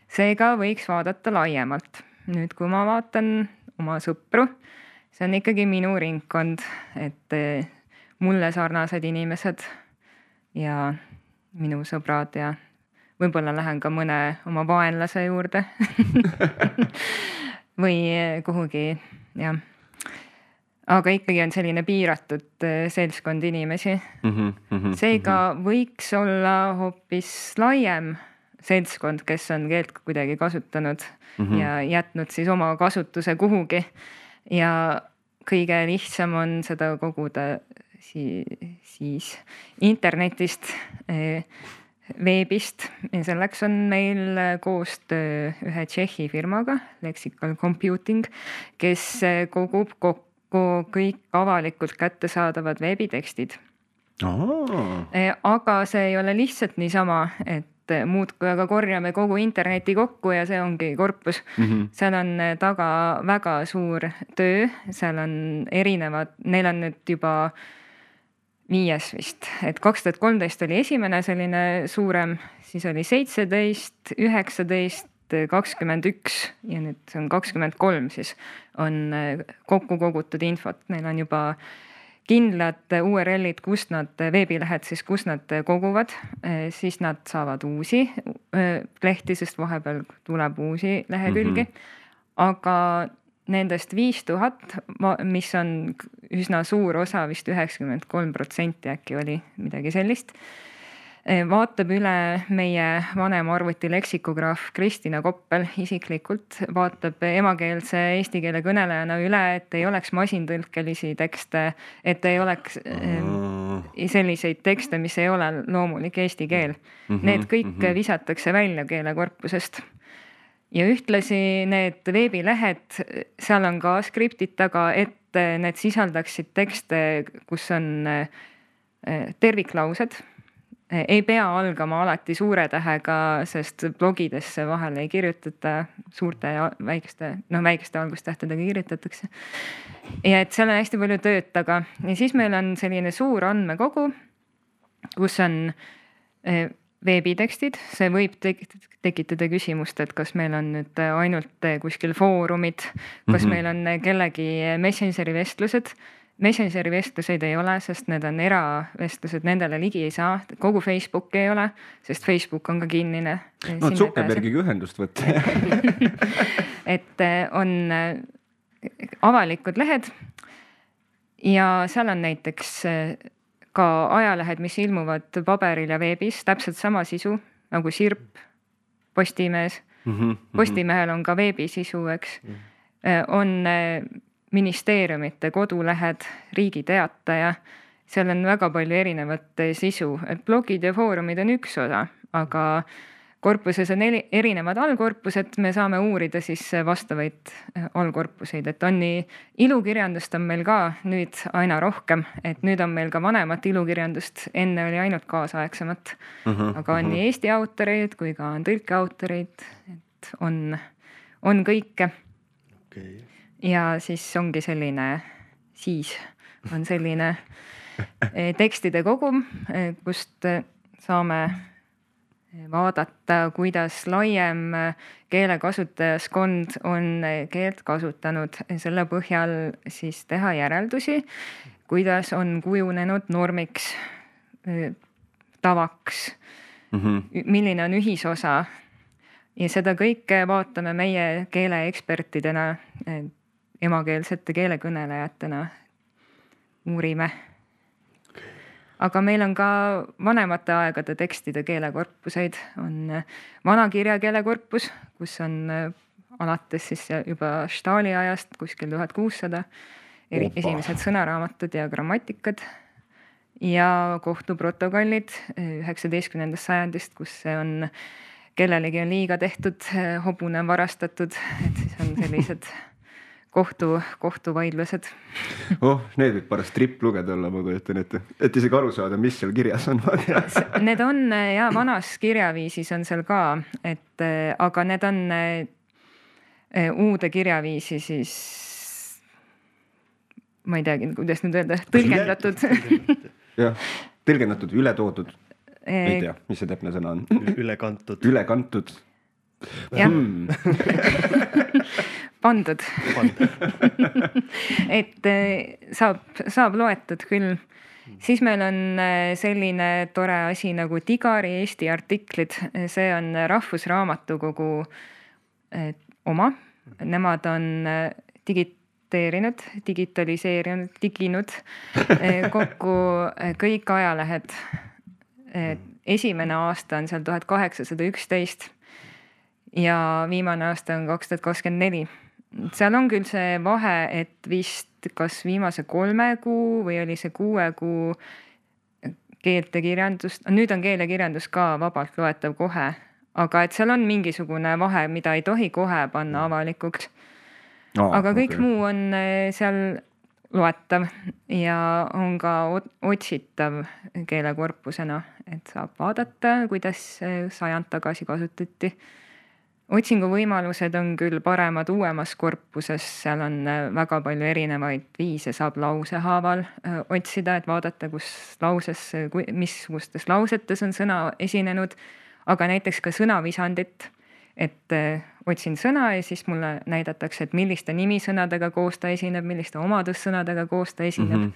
Speaker 3: Seega võiks vaadata laiemalt. Nüüd, kui ma vaatan oma sõpru, see on ikkagi minu ringkond, et mulle sarnased inimesed ja minu sõbrad ja võib-olla lähen ka mõne oma vaenlase juurde või kuhugi, jah. Aga ikkagi on selline piiratud seltskond inimesi. Seega võiks olla hoopis laiem seltskond, kes on keelt kuidagi kasutanud ja jätnud siis oma kasutuse kuhugi. Ja kõige lihtsam on seda koguda siis internetist, veebist. Ja selleks on meil koostöö ühe Tšehhi firmaga, Lexical Computing, kes kogub kokku kõik avalikult kättesaadavad veebitekstid. Aga see ei ole lihtsalt niisama, et muudkui aga korjame kogu interneti kokku ja see ongi korpus. Seal on taga väga suur töö, seal on erinevad, neil on nüüd juba 5 vist, et 2013 oli esimene selline suurem, siis oli 17, 19, 21 ja nüüd see on 23 siis on kokku kogutud infot, neil on juba kindlad URL-id, kust nad, veebilehed siis, kus nad koguvad, siis nad saavad uusi lehti, sest vahepeal tuleb uusi lehekülgi, aga nendest 5000, mis on üsna suur osa, vist 93% äkki oli midagi sellist, vaatab üle meie vanem arvuti leksikograaf Kristina Koppel isiklikult, vaatab emakeelse eesti keele kõnelejana üle, et ei oleks masintõlkelisi tekste, et ei oleks selliseid tekste, mis ei ole loomulik eesti keel. Need kõik visatakse välja keelekorpusest. Ja ühtlasi need veebilehed, seal on ka skriptid taga, et need sisaldaksid tekste, kus on terviklaused. Ei pea algama alati suure tähega, sest blogidesse vahel ei kirjutata suurte ja väikeste algustähtedega kirjutatakse. Ja et seal on hästi palju tööd taga. Ja siis meil on selline suur andmekogu, kus on veebitekstid. See võib tekitada küsimust, et kas meil on nüüd ainult kuskil foorumid, kas meil on kellegi Messengeri vestlused. Messengeri vestluseid ei ole, sest need on eravestlused, nendele ligi ei saa. Kogu Facebook ei ole, sest Facebook on ka kinnine.
Speaker 1: No Zuckerbergiga ühendust võtta.
Speaker 3: Et on avalikud lehed ja seal on näiteks ka ajalehed, mis ilmuvad paberil ja veebis, täpselt sama sisu nagu Sirp, Postimees. Postimehel on ka veebisisu, eks. On ministeeriumite kodulehed, Riigi Teataja, seal on väga palju erinevat sisu, et blogid ja foorumid on üks osa, aga korpuses on erinevad allkorpused, me saame uurida siis vastavaid allkorpuseid, et on nii ilukirjandust on meil ka nüüd aina rohkem, et nüüd on meil ka vanemat ilukirjandust, enne oli ainult kaasaegsemat, aga on nii eesti autoreid kui ka on tõlkeautoreid, et on kõike.
Speaker 2: Okay.
Speaker 3: Ja siis ongi selline, siis on selline tekstide kogum, kust saame vaadata, kuidas laiem keelekasutajaskond on keelt kasutanud, selle põhjal siis teha järeldusi, kuidas on kujunenud normiks, tavaks, milline on ühisosa ja seda kõike vaatame meie keeleekspertidena, emakeelsete keelekõnelejatena uurime. Aga meil on ka vanemate aegade tekstide keelekorpuseid, on vana kirjakeelekorpus, kus on alates siis juba Stahli ajast kuskil 1600 esimesed sõnaraamatud ja grammatikad ja kohtuprotokollid 19. sajandist, kus see on, kellelegi on liiga tehtud, hobune on varastatud, et siis on sellised kohtuvaidlused.
Speaker 1: Need võib pärast trip lugeda olla, ma kujutan ette, et isegi aru saada, mis seal kirjas on.
Speaker 3: Need on ja vanas kirjaviisis on seal ka, et aga need on uude kirjaviisi siis, ma ei teagi, kuidas nüüd öelda, tõlgendatud.
Speaker 1: Jah, tõlgendatud, üle toodud. Ei tea, mis see täpne sõna on.
Speaker 2: Üle kantud.
Speaker 1: Üle kantud.
Speaker 3: Jah. Pandud. Et saab loetud küll. Siis meil on selline tore asi nagu Digari Eesti artiklid. See on Rahvusraamatukogu oma. Nemad on digitaliseerinud kokku kõik ajalehed. Esimene aasta on seal 1811 ja viimane aasta on 2024. Seal on küll see vahe, et vist kas viimase 3 kuu või oli see 6 kuu keeltekirjandust, nüüd on keelekirjandus ka vabalt loetav kohe, aga et seal on mingisugune vahe, mida ei tohi kohe panna avalikuks. Aga kõik muu on seal loetav ja on ka otsitav keelekorpusena, et saab vaadata, kuidas sajand tagasi kasutati. Otsinguvõimalused on küll paremad uuemas korpuses, seal on väga palju erinevaid viise, saab lausehaaval otsida, et vaadata, kus lauses, missugustes lausetes on sõna esinenud, aga näiteks ka sõnavisandit, et otsin sõna ja siis mulle näidatakse, et milliste nimisõnadega koos ta esineb, milliste omadussõnadega koos ta esineb,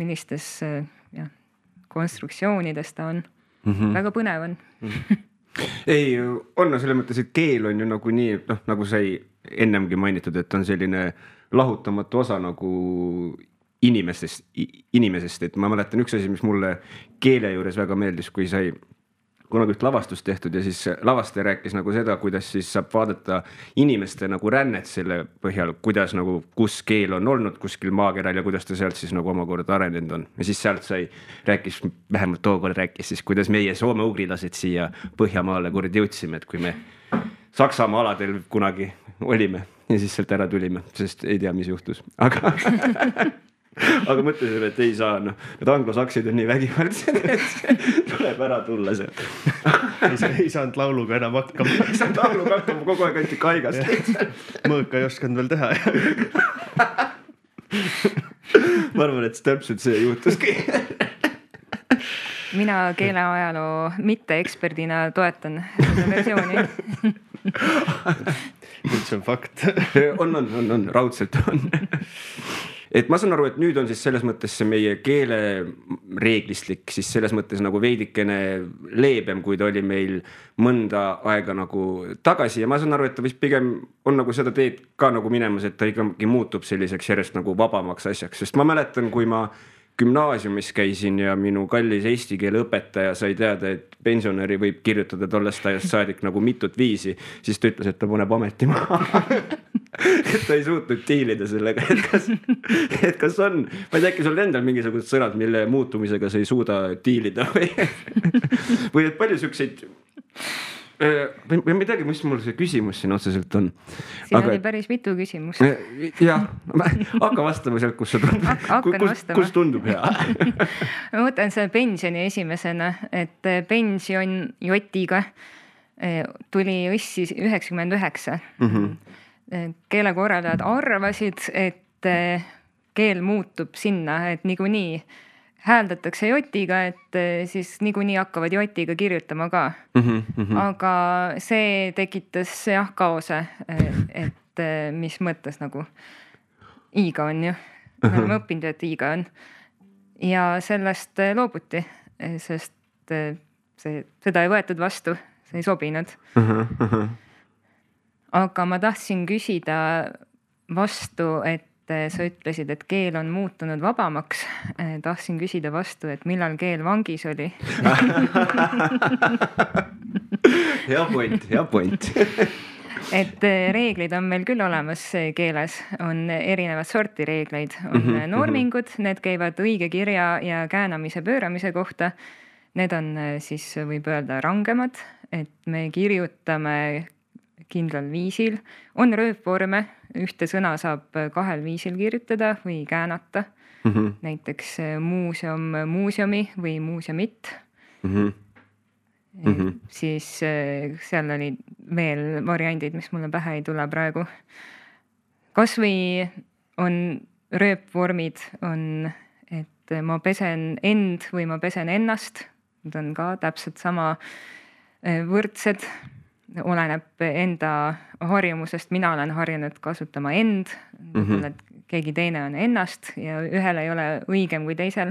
Speaker 3: millistes konstruktsioonides ta on. Väga põnev on.
Speaker 1: Ei, on selles mõttes, et keel on ju nagu nii, nagu sai ennemgi mainitud, et on selline lahutamatu osa nagu inimesest, et ma mäletan üks asi, mis mulle keele juures väga meeldis, kui sai kunagi üht lavastust tehtud ja siis lavastaja rääkis nagu seda, kuidas siis saab vaadata inimeste nagu rännet selle põhjal, kuidas nagu, kus keel on olnud kuskil maakeral ja kuidas ta sealt siis nagu omakorda arenenud on. Ja siis sealt rääkis, vähemalt tookord rääkis siis, kuidas meie soome-ugrilased siia Põhjamaale kuradi jõudsime, et kui me Saksamaa aladel kunagi olime ja siis sealt ära tulime, sest ei tea, mis juhtus, aga mõtlesin, et ei saa, need anglosaksid on nii vägivaldsed, et tuleb ära tulla sealt.
Speaker 2: Ei saanud lauluga enam hakkama.
Speaker 1: Ei saanud lauluga hakkama, kogu aeg anti kaigast.
Speaker 2: Mõõka ei oskanud veel teha.
Speaker 1: Ma arvan, et täpselt see juhtuski.
Speaker 3: Mina keeleajaloo mitte-eksperdina toetan seda versiooni.
Speaker 2: Nüüd see on fakt.
Speaker 1: On, raudselt on. Et ma saan aru, et nüüd on siis selles mõttes see meie keele reeglistik siis selles mõttes nagu veidikene leebem, kui ta oli meil mõnda aega nagu tagasi ja ma saan aru, et ta vist pigem on nagu seda teed ka nagu minemas, et ta ikkagi muutub selliseks järjest nagu vabamaks asjaks, sest ma mäletan, kui ma gümnaasiumis käisin ja minu kallis eesti keele õpetaja sai teada, et pensionäri võib kirjutada tollest ajast saadik nagu mitut viisi, siis ta ütles, et ta paneb ameti maha. Et ta ei suutnud diilida sellega, et kas on, ma ei tea, äkki sul endal mingisugused sõnad, mille muutumisega sa ei suuda diilida või et palju sükseid või ma ei teagi, mis mul see küsimus siin otseselt on.
Speaker 3: Siin oli päris mitu küsimust.
Speaker 1: Jah, hakka vastama sealt, kus tundub hea.
Speaker 3: Ma võtan selle pensioni esimesena, et pension jotiga tuli õssi 99. Keelekorraldajad arvasid, et keel muutub sinna, et niikuinii hääldatakse jotiga, et siis niikuinii hakkavad jotiga kirjutama ka. Aga see tekitas kaose, et mis mõttes nagu iiga on ju. Me oleme õppinud, et iiga on. Ja sellest loobuti, sest seda ei võetud vastu, see ei sobinud. Aga ma tahtsin küsida vastu, et sa ütlesid, et keel on muutunud vabamaks. Tahtsin küsida vastu, et millal keel vangis oli.
Speaker 1: Hea point.
Speaker 3: Et reeglid on meil küll olemas keeles, on erinevad sorti reegleid, on normingud, need käivad õige kirja ja käänamise pööramise kohta. Need on siis võib öelda rangemad, et me kirjutame kindlal viisil. On rööpvorme, ühte sõna saab kahel viisil kirjutada või käänata. Näiteks muuseum, muuseumi või muuseumit. Siis seal oli veel variandid, mis mulle pähe ei tule praegu. Kas või on rööpvormid, on, et ma pesen end või ma pesen ennast. Need on ka täpselt sama võrdsed. Oleneb enda harjumusest, mina olen harjunud kasutama end, keegi teine on ennast ja ühel ei ole õigem kui teisel.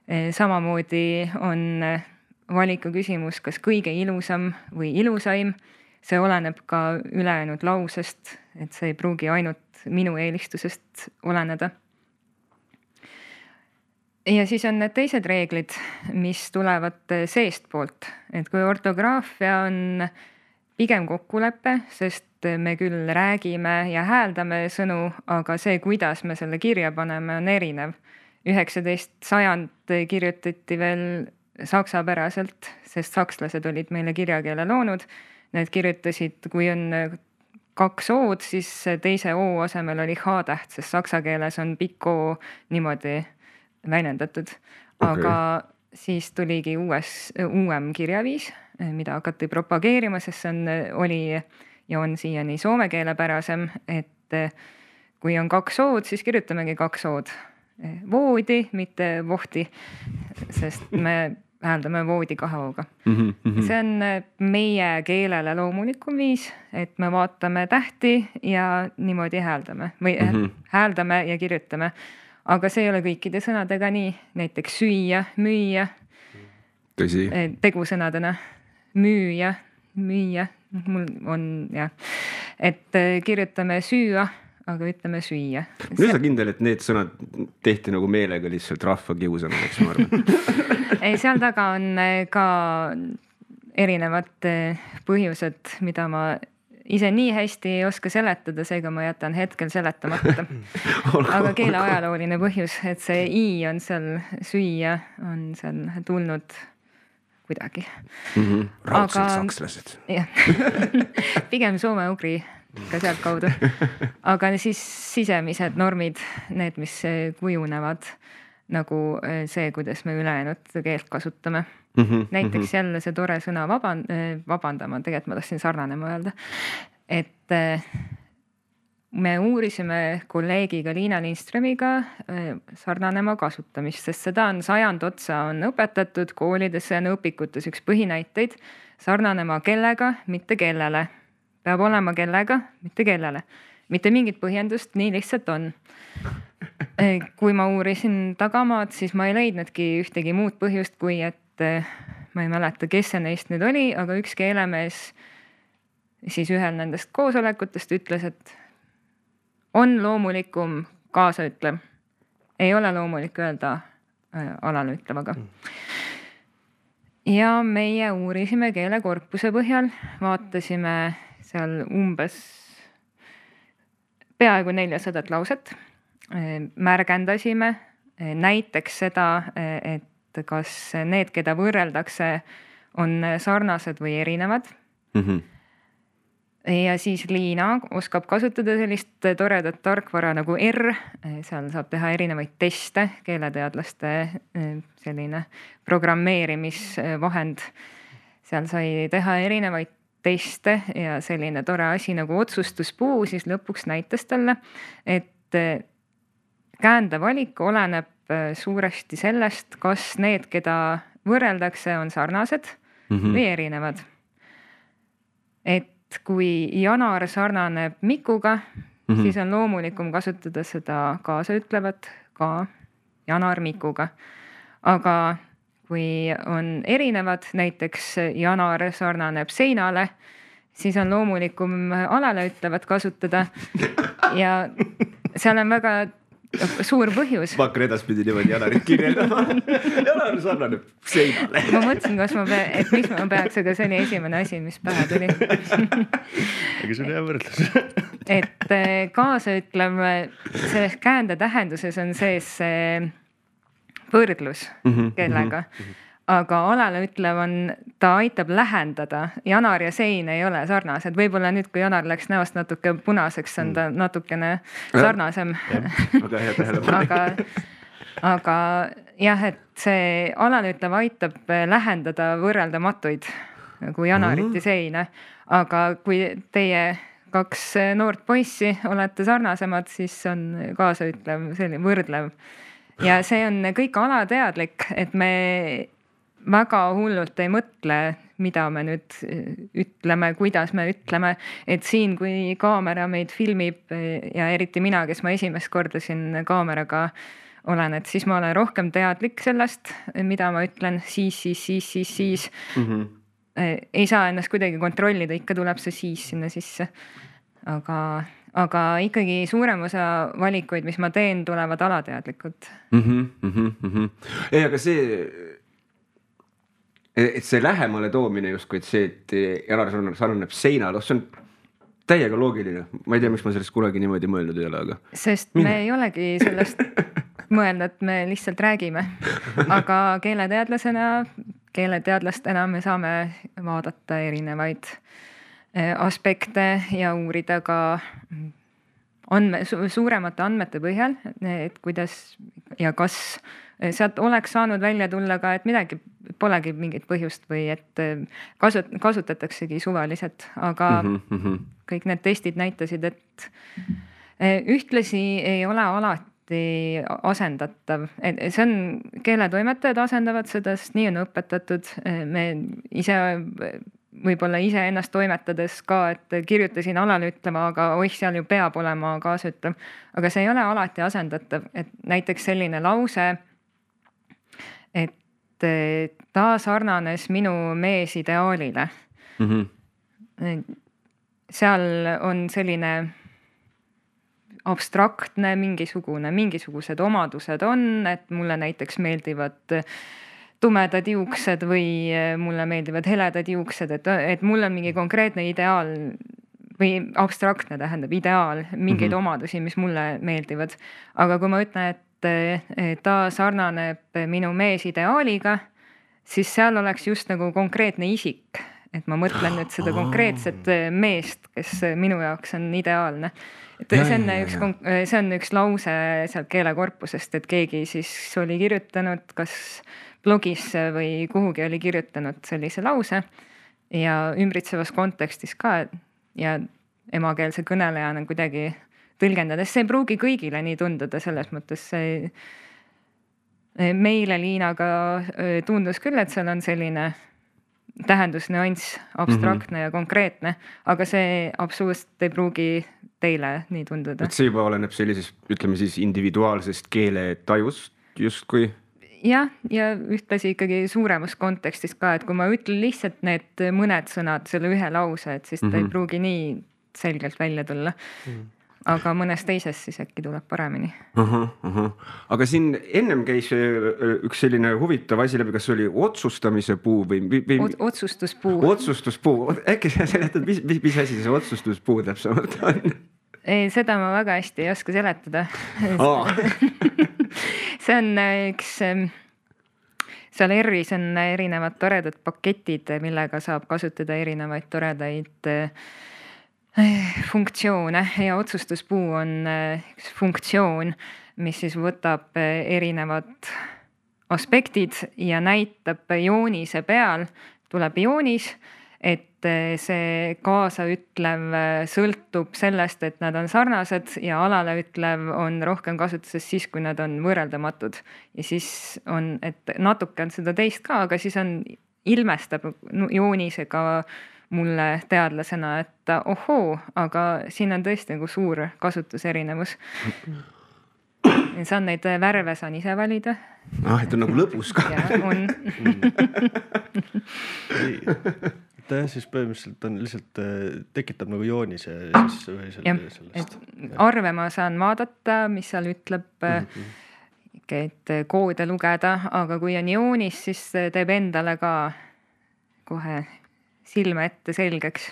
Speaker 3: Samamoodi on valiku küsimus, kas kõige ilusam või ilusaim, see oleneb ka ülejäänud lausest, et see ei pruugi ainult minu eelistusest oleneda. Ja siis on need teised reeglid, mis tulevad seest poolt, et kui ortograafia on pigem kokkulepe, sest me küll räägime ja hääldame sõnu, aga see, kuidas me selle kirja paneme, on erinev. 19. sajand kirjutati veel saksapäraselt, sest sakslased olid meile kirjakeele loonud. Need kirjutasid, kui on 2 O-d, siis teise O asemel oli H-täht, sest saksa keeles on pikk O niimoodi väljendatud. Aga siis tuligi uuem kirjaviis, mida hakati propageerima, sest see oli ja on siiani soome keelepärasem, et kui on 2 O-d, siis kirjutamegi 2 O-d. Voodi, mitte vohti, sest me hääldame voodi 2 O-ga. See on meie keelele loomulikum viis, et me vaatame tähti ja niimoodi hääldame või hääldame ja kirjutame. Aga see ei ole kõikide sõnadega nii, näiteks süüa, müüa,
Speaker 1: tõsi.
Speaker 3: Tegusõnadena, müüa, mul on et kirjutame süüa, aga ütleme süüa.
Speaker 1: Nüüd sa kindel, et need sõnad tehti nagu meelega lihtsalt rahva kiusamaks, ma arvan.
Speaker 3: Ei, seal taga on ka erinevad põhjused, mida ma ise nii hästi ei oska seletada, seega ma jätan hetkel seletamata. Aga keele ajalooline põhjus, et see I on seal, süüa on seal tulnud kuidagi.
Speaker 1: Raudselt sakslased.
Speaker 3: Pigem soome-ugri ka sealt kaudu. Aga siis sisemised normid, need, mis kujunevad nagu see, kuidas me ülejäänud keelt kasutame. Näiteks jälle see tore sõna vabandama, tegelikult ma tahtsin sarnanema öelda, et me uurisime kolleegiga Liina Lindströmiga sarnanema kasutamist, sest seda on 100 otsa on õpetatud koolides ja õpikutes üks põhinäiteid sarnanema kellega, mitte kellele. Peab olema kellega, mitte kellele. Mitte mingit põhjendust, nii lihtsalt on. Kui ma uurisin tagamaad, siis ma ei leidnudki ühtegi muud põhjust, kui et ma ei mäleta, kes see neist nüüd oli, aga üks keelemees siis ühel nendest koosolekutest ütles, et on loomulikum kaasaütlev. Ei ole loomulik öelda alalütlevaga. Ja meie uurisime keelekorpuse põhjal, vaatasime seal umbes peaaegu 400 lauset, märgendasime näiteks seda, et kas need, keda võrreldakse, on sarnased või erinevad. Ja siis Liina oskab kasutada sellist toredat tarkvara nagu R, seal saab teha erinevaid teste, keeleteadlaste selline programmeerimisvahend. Seal sai teha erinevaid teste ja selline tore asi nagu otsustuspuu, siis lõpuks näitas talle, et käände valik oleneb suuresti sellest, kas need, keda võrreldakse, on sarnased või erinevad. Et kui Janar sarnaneb Mikuga, siis on loomulikum kasutada seda kaasaütlevat ka Janar Mikuga. Aga kui on erinevad, näiteks Janar sarnaneb seinale, siis on loomulikum alale ütlevat kasutada ja seal on väga suur põhjus.
Speaker 1: Ma hakkan edaspidi niimoodi Janarit kirjeldama. Janar sarnaneb seinale.
Speaker 3: Ma mõtlesin, et miks ma peaks, aga see oli esimene asi, mis pähe tuli.
Speaker 2: Aga see on hea võrdlus.
Speaker 3: Et kaasaütlev, selles käände tähenduses on sees võrdlus kellega. Aga alale ütlev on, ta aitab lähendada. Janar ja sein ei ole sarnased. Võib-olla nüüd, kui Janar läks näost natuke punaseks, on ta natukene sarnasem.
Speaker 1: Väga hea tähelepanek.
Speaker 3: Aga jah, et see alale ütlev aitab lähendada võrreldamatuid nagu Janarit ja seina. Aga kui teie 2 noort poissi olete sarnasemad, siis on kaasaütlev selline võrdlev. Ja see on kõik alateadlik, et me väga hullult ei mõtle, mida me nüüd ütleme, kuidas me ütleme, et siin, kui kaamera meid filmib ja eriti mina, kes ma esimest korda siin kaameraga olen, et siis ma olen rohkem teadlik sellest, mida ma ütlen, siis. Ei saa ennast kuidagi kontrollida, ikka tuleb see siis sinna sisse. Aga ikkagi suurem osa valikuid, mis ma teen, tulevad alateadlikud.
Speaker 1: Ei, aga et see lähemale toomine justkui, et see, et Janar sarnaneb seinal, see on täiega loogiline. Ma ei tea, miks ma sellest kunagi niimoodi mõelnud ei ole, aga...
Speaker 3: Sest me ei olegi sellest mõelnud, me lihtsalt räägime. Aga keeleteadlastena me saame vaadata erinevaid aspekte ja uurida ka suuremate andmete põhjal, et kuidas ja kas sealt oleks saanud välja tulla ka, et midagi polegi mingit põhjust või et kasutataksegi suvaliselt, aga kõik need testid näitasid, et ühtlasi ei ole alati asendatav. See on, keeletoimetajad asendavad seda, sest nii on õpetatud. Me ise võib-olla ennast toimetades ka, et kirjutasin alale ütlema, aga seal ju peab olema kaasütlev. Aga see ei ole alati asendatav, et näiteks selline lause, et ta sarnanes minu mees ideaalile. Seal on selline abstraktne mingisugused omadused on, et mulle näiteks meeldivad tumedad juuksed või mulle meeldivad heledad juuksed, et mul on mingi konkreetne ideaal või abstraktne tähendab ideaal, mingeid omadusi, mis mulle meeldivad. Aga kui ma ütlen, et ta sarnaneb minu mees ideaaliga, siis seal oleks just nagu konkreetne isik, et ma mõtlen nüüd seda konkreetset meest, kes minu jaoks on ideaalne. See on üks lause sealt keelekorpusest, et keegi siis oli kirjutanud, kas blogisse või kuhugi oli kirjutanud sellise lause ja ümbritsevas kontekstis ka ja emakeelse kõnelejana kuidagi tõlgendades. See ei pruugi kõigile nii tunduda, selles mõttes meile Liinaga tundus küll, et seal on selline tähendusnüanss, abstraktne ja konkreetne, aga see absoluutselt ei pruugi teile nii tunduda.
Speaker 1: Et see juba oleneb sellisest, ütleme siis individuaalsest keeletajust justkui?
Speaker 3: Ja ühtlasi ikkagi suuremas kontekstis ka, et kui ma ütlen lihtsalt need mõned sõnad, selle ühe lause, et siis ta ei pruugi nii selgelt välja tulla. Aga mõnes teises siis äkki tuleb paremini.
Speaker 1: Aga siin ennem käis üks selline huvitav asi läbi, kas oli otsustamise puu või...
Speaker 3: Otsustuspuu.
Speaker 1: Otsustuspuu. Äkki sa seletad, mis asi see otsustuspuu täpsemalt on?
Speaker 3: Seda ma väga hästi ei oska seletada. See on üks, seal ERR-is on erinevad toredad paketid, millega saab kasutada erinevaid toredaid funktsioone ja otsustuspuu on üks funktsioon, mis siis võtab erinevad aspektid ja näitab joonise peal, tuleb joonis, et see kaasaütlev sõltub sellest, et nad on sarnased ja alaleütlev on rohkem kasutuses siis, kui nad on võrreldamatud. Ja siis on, et natuke on seda teist ka, aga siis on ilmestab joonisega mulle teadlasena, et ohoo, aga siin on tõesti nagu suur kasutuserinevus. Saan neid värve saan ise valida.
Speaker 1: Et on nagu lõbus ka.
Speaker 3: Ja, on.
Speaker 2: Siis põhimõtteliselt on lihtsalt tekitab nagu joonise
Speaker 3: sellest. Arve ma saan vaadata, mis seal ütleb, et koode lugeda, aga kui on joonis, siis teeb endale ka kohe silme ette selgeks.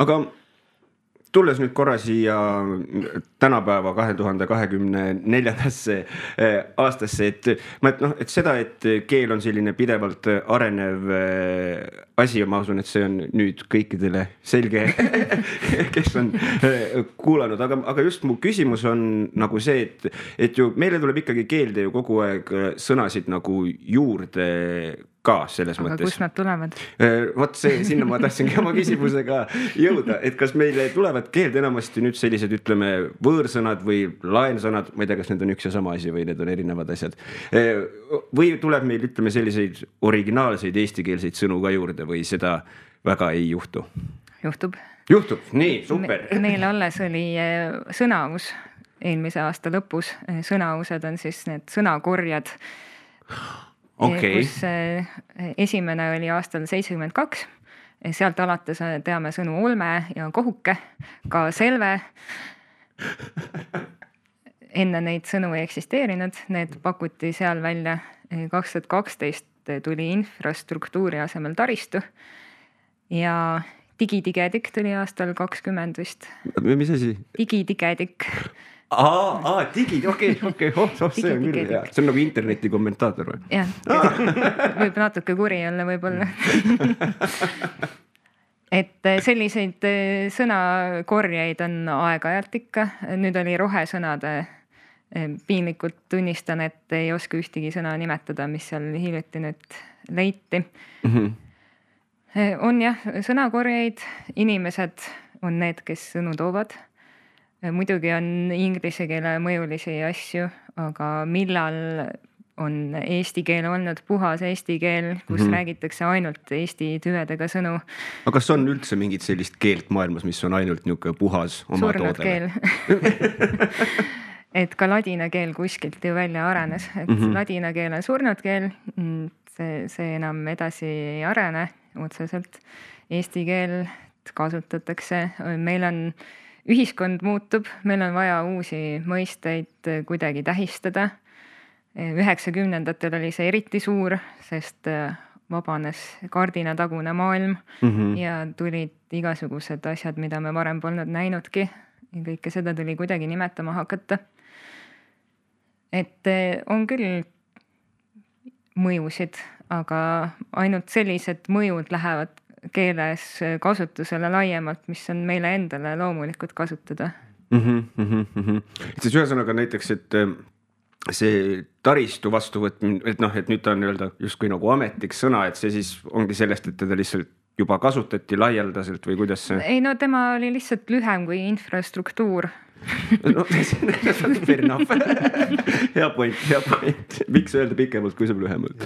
Speaker 1: Aga tulles nüüd korra siia tänapäeva 2024. aastasse, et seda, et keel on selline pidevalt arenev asi ja ma usun, et see on nüüd kõikidele selge, kes on kuulanud, aga just mu küsimus on nagu see, et ju meile tuleb ikkagi keelde ju kogu aeg sõnasid nagu juurde ka selles mõttes.
Speaker 3: Aga kus nad tulevad?
Speaker 1: Vot see, sinna ma tahtsingi oma küsimusega jõuda, et kas meile tulevad keelde enamasti nüüd sellised, ütleme, võõrsõnad või laensõnad, ma ei tea, kas need on üks ja sama asi või need on erinevad asjad. Või tuleb meil, ütleme, selliseid originaalseid eestikeelseid sõnu ka juurde või seda väga ei juhtu?
Speaker 3: Juhtub,
Speaker 1: nii, super.
Speaker 3: Meil alles oli sõnaus eelmise aasta lõpus. Sõnaused on siis need sõnakorjad.
Speaker 1: Okay.
Speaker 3: Kus esimene oli aastal 72. Sealt alates teame sõnu olme ja kohuke, ka selve. Enne neid sõnu ei eksisteerinud, need pakuti seal välja. 2012 tuli infrastruktuuri asemel taristu ja digidigedik tuli aastal 20 vist.
Speaker 1: Mis asi?
Speaker 3: Digidigedik.
Speaker 1: Digi, okei, see on küll hea. See on nagu interneti kommentaator või?
Speaker 3: Jah, võib natuke kuri olla võib-olla. Et selliseid sõnakorjeid on aeg-ajalt ikka. Nüüd oli rohesõnade Piinlikult tunnistan, et ei oska ühtegi sõna nimetada, mis seal hiljuti nüüd leiti. On jah, sõnakorjeid, inimesed on need, kes sõnu toovad. Muidugi on inglise keele mõjulisi asju, aga millal on eesti keel olnud puhas eesti keel, kus räägitakse ainult eesti tüvedega sõnu.
Speaker 1: Aga kas on üldse mingit sellist keelt maailmas, mis on ainult niuke puhas oma
Speaker 3: surnud
Speaker 1: toodele?
Speaker 3: Keel. Et ka ladina keel kuskilt ju välja arenes, et ladina keel on surnud keel, see enam edasi ei arene otseselt. Eesti keelt kasutatakse, meil on ühiskond muutub, meil on vaja uusi mõisteid kuidagi tähistada. 90-ndatel oli see eriti suur, sest vabanes kardinatagune maailm ja tulid igasugused asjad, mida me varem polnud näinudki. Ja kõike seda tuli kuidagi nimetama hakata. Et on küll mõjusid, aga ainult sellised mõjud lähevad keeles kasutusele laiemalt, mis on meile endale loomulikult kasutada.
Speaker 1: Et siis ühesõnaga näiteks, et see taristu vastuvõtmine, et nüüd ta on öelda justkui nagu ametiks sõna, et see siis ongi sellest, et teda lihtsalt juba kasutati laialdaselt või kuidas see?
Speaker 3: Ei, no tema oli lihtsalt lühem kui infrastruktuur.
Speaker 1: No, fair enough. Hea point. Miks öelda pikemalt, kui saab lühemalt?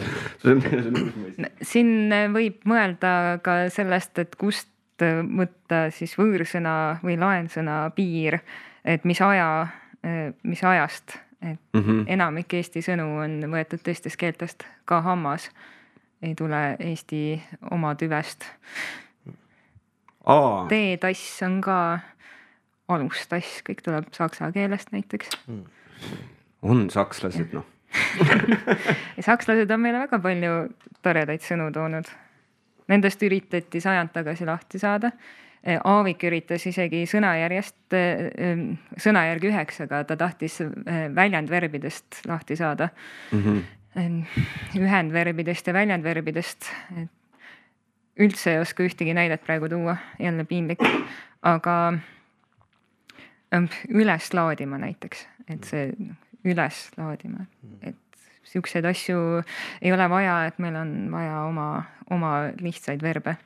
Speaker 3: Siin võib mõelda ka sellest, et kust võtta siis võõrsõna või laensõna piir, et mis ajast. Et enamik Eesti sõnu on võetud teistest keeltest, ka hammas ei tule Eesti oma tüvest. T-tass on ka alustass, kõik tuleb saksa keelest näiteks.
Speaker 1: On sakslased, noh.
Speaker 3: Sakslased on meile väga palju toredaid sõnu toonud. Nendest üritati sajand tagasi lahti saada. Aavik üritas isegi sõnajärgi 9, aga ta tahtis väljendverbidest lahti saada. Ühendverbidest ja väljendverbidest. Üldse ei oska ühtegi näidet praegu tuua, jälle piinlik. Aga üles laadima näiteks, et see üles laadima, et siukseid asju ei ole vaja, et meil on vaja oma lihtsaid verbe.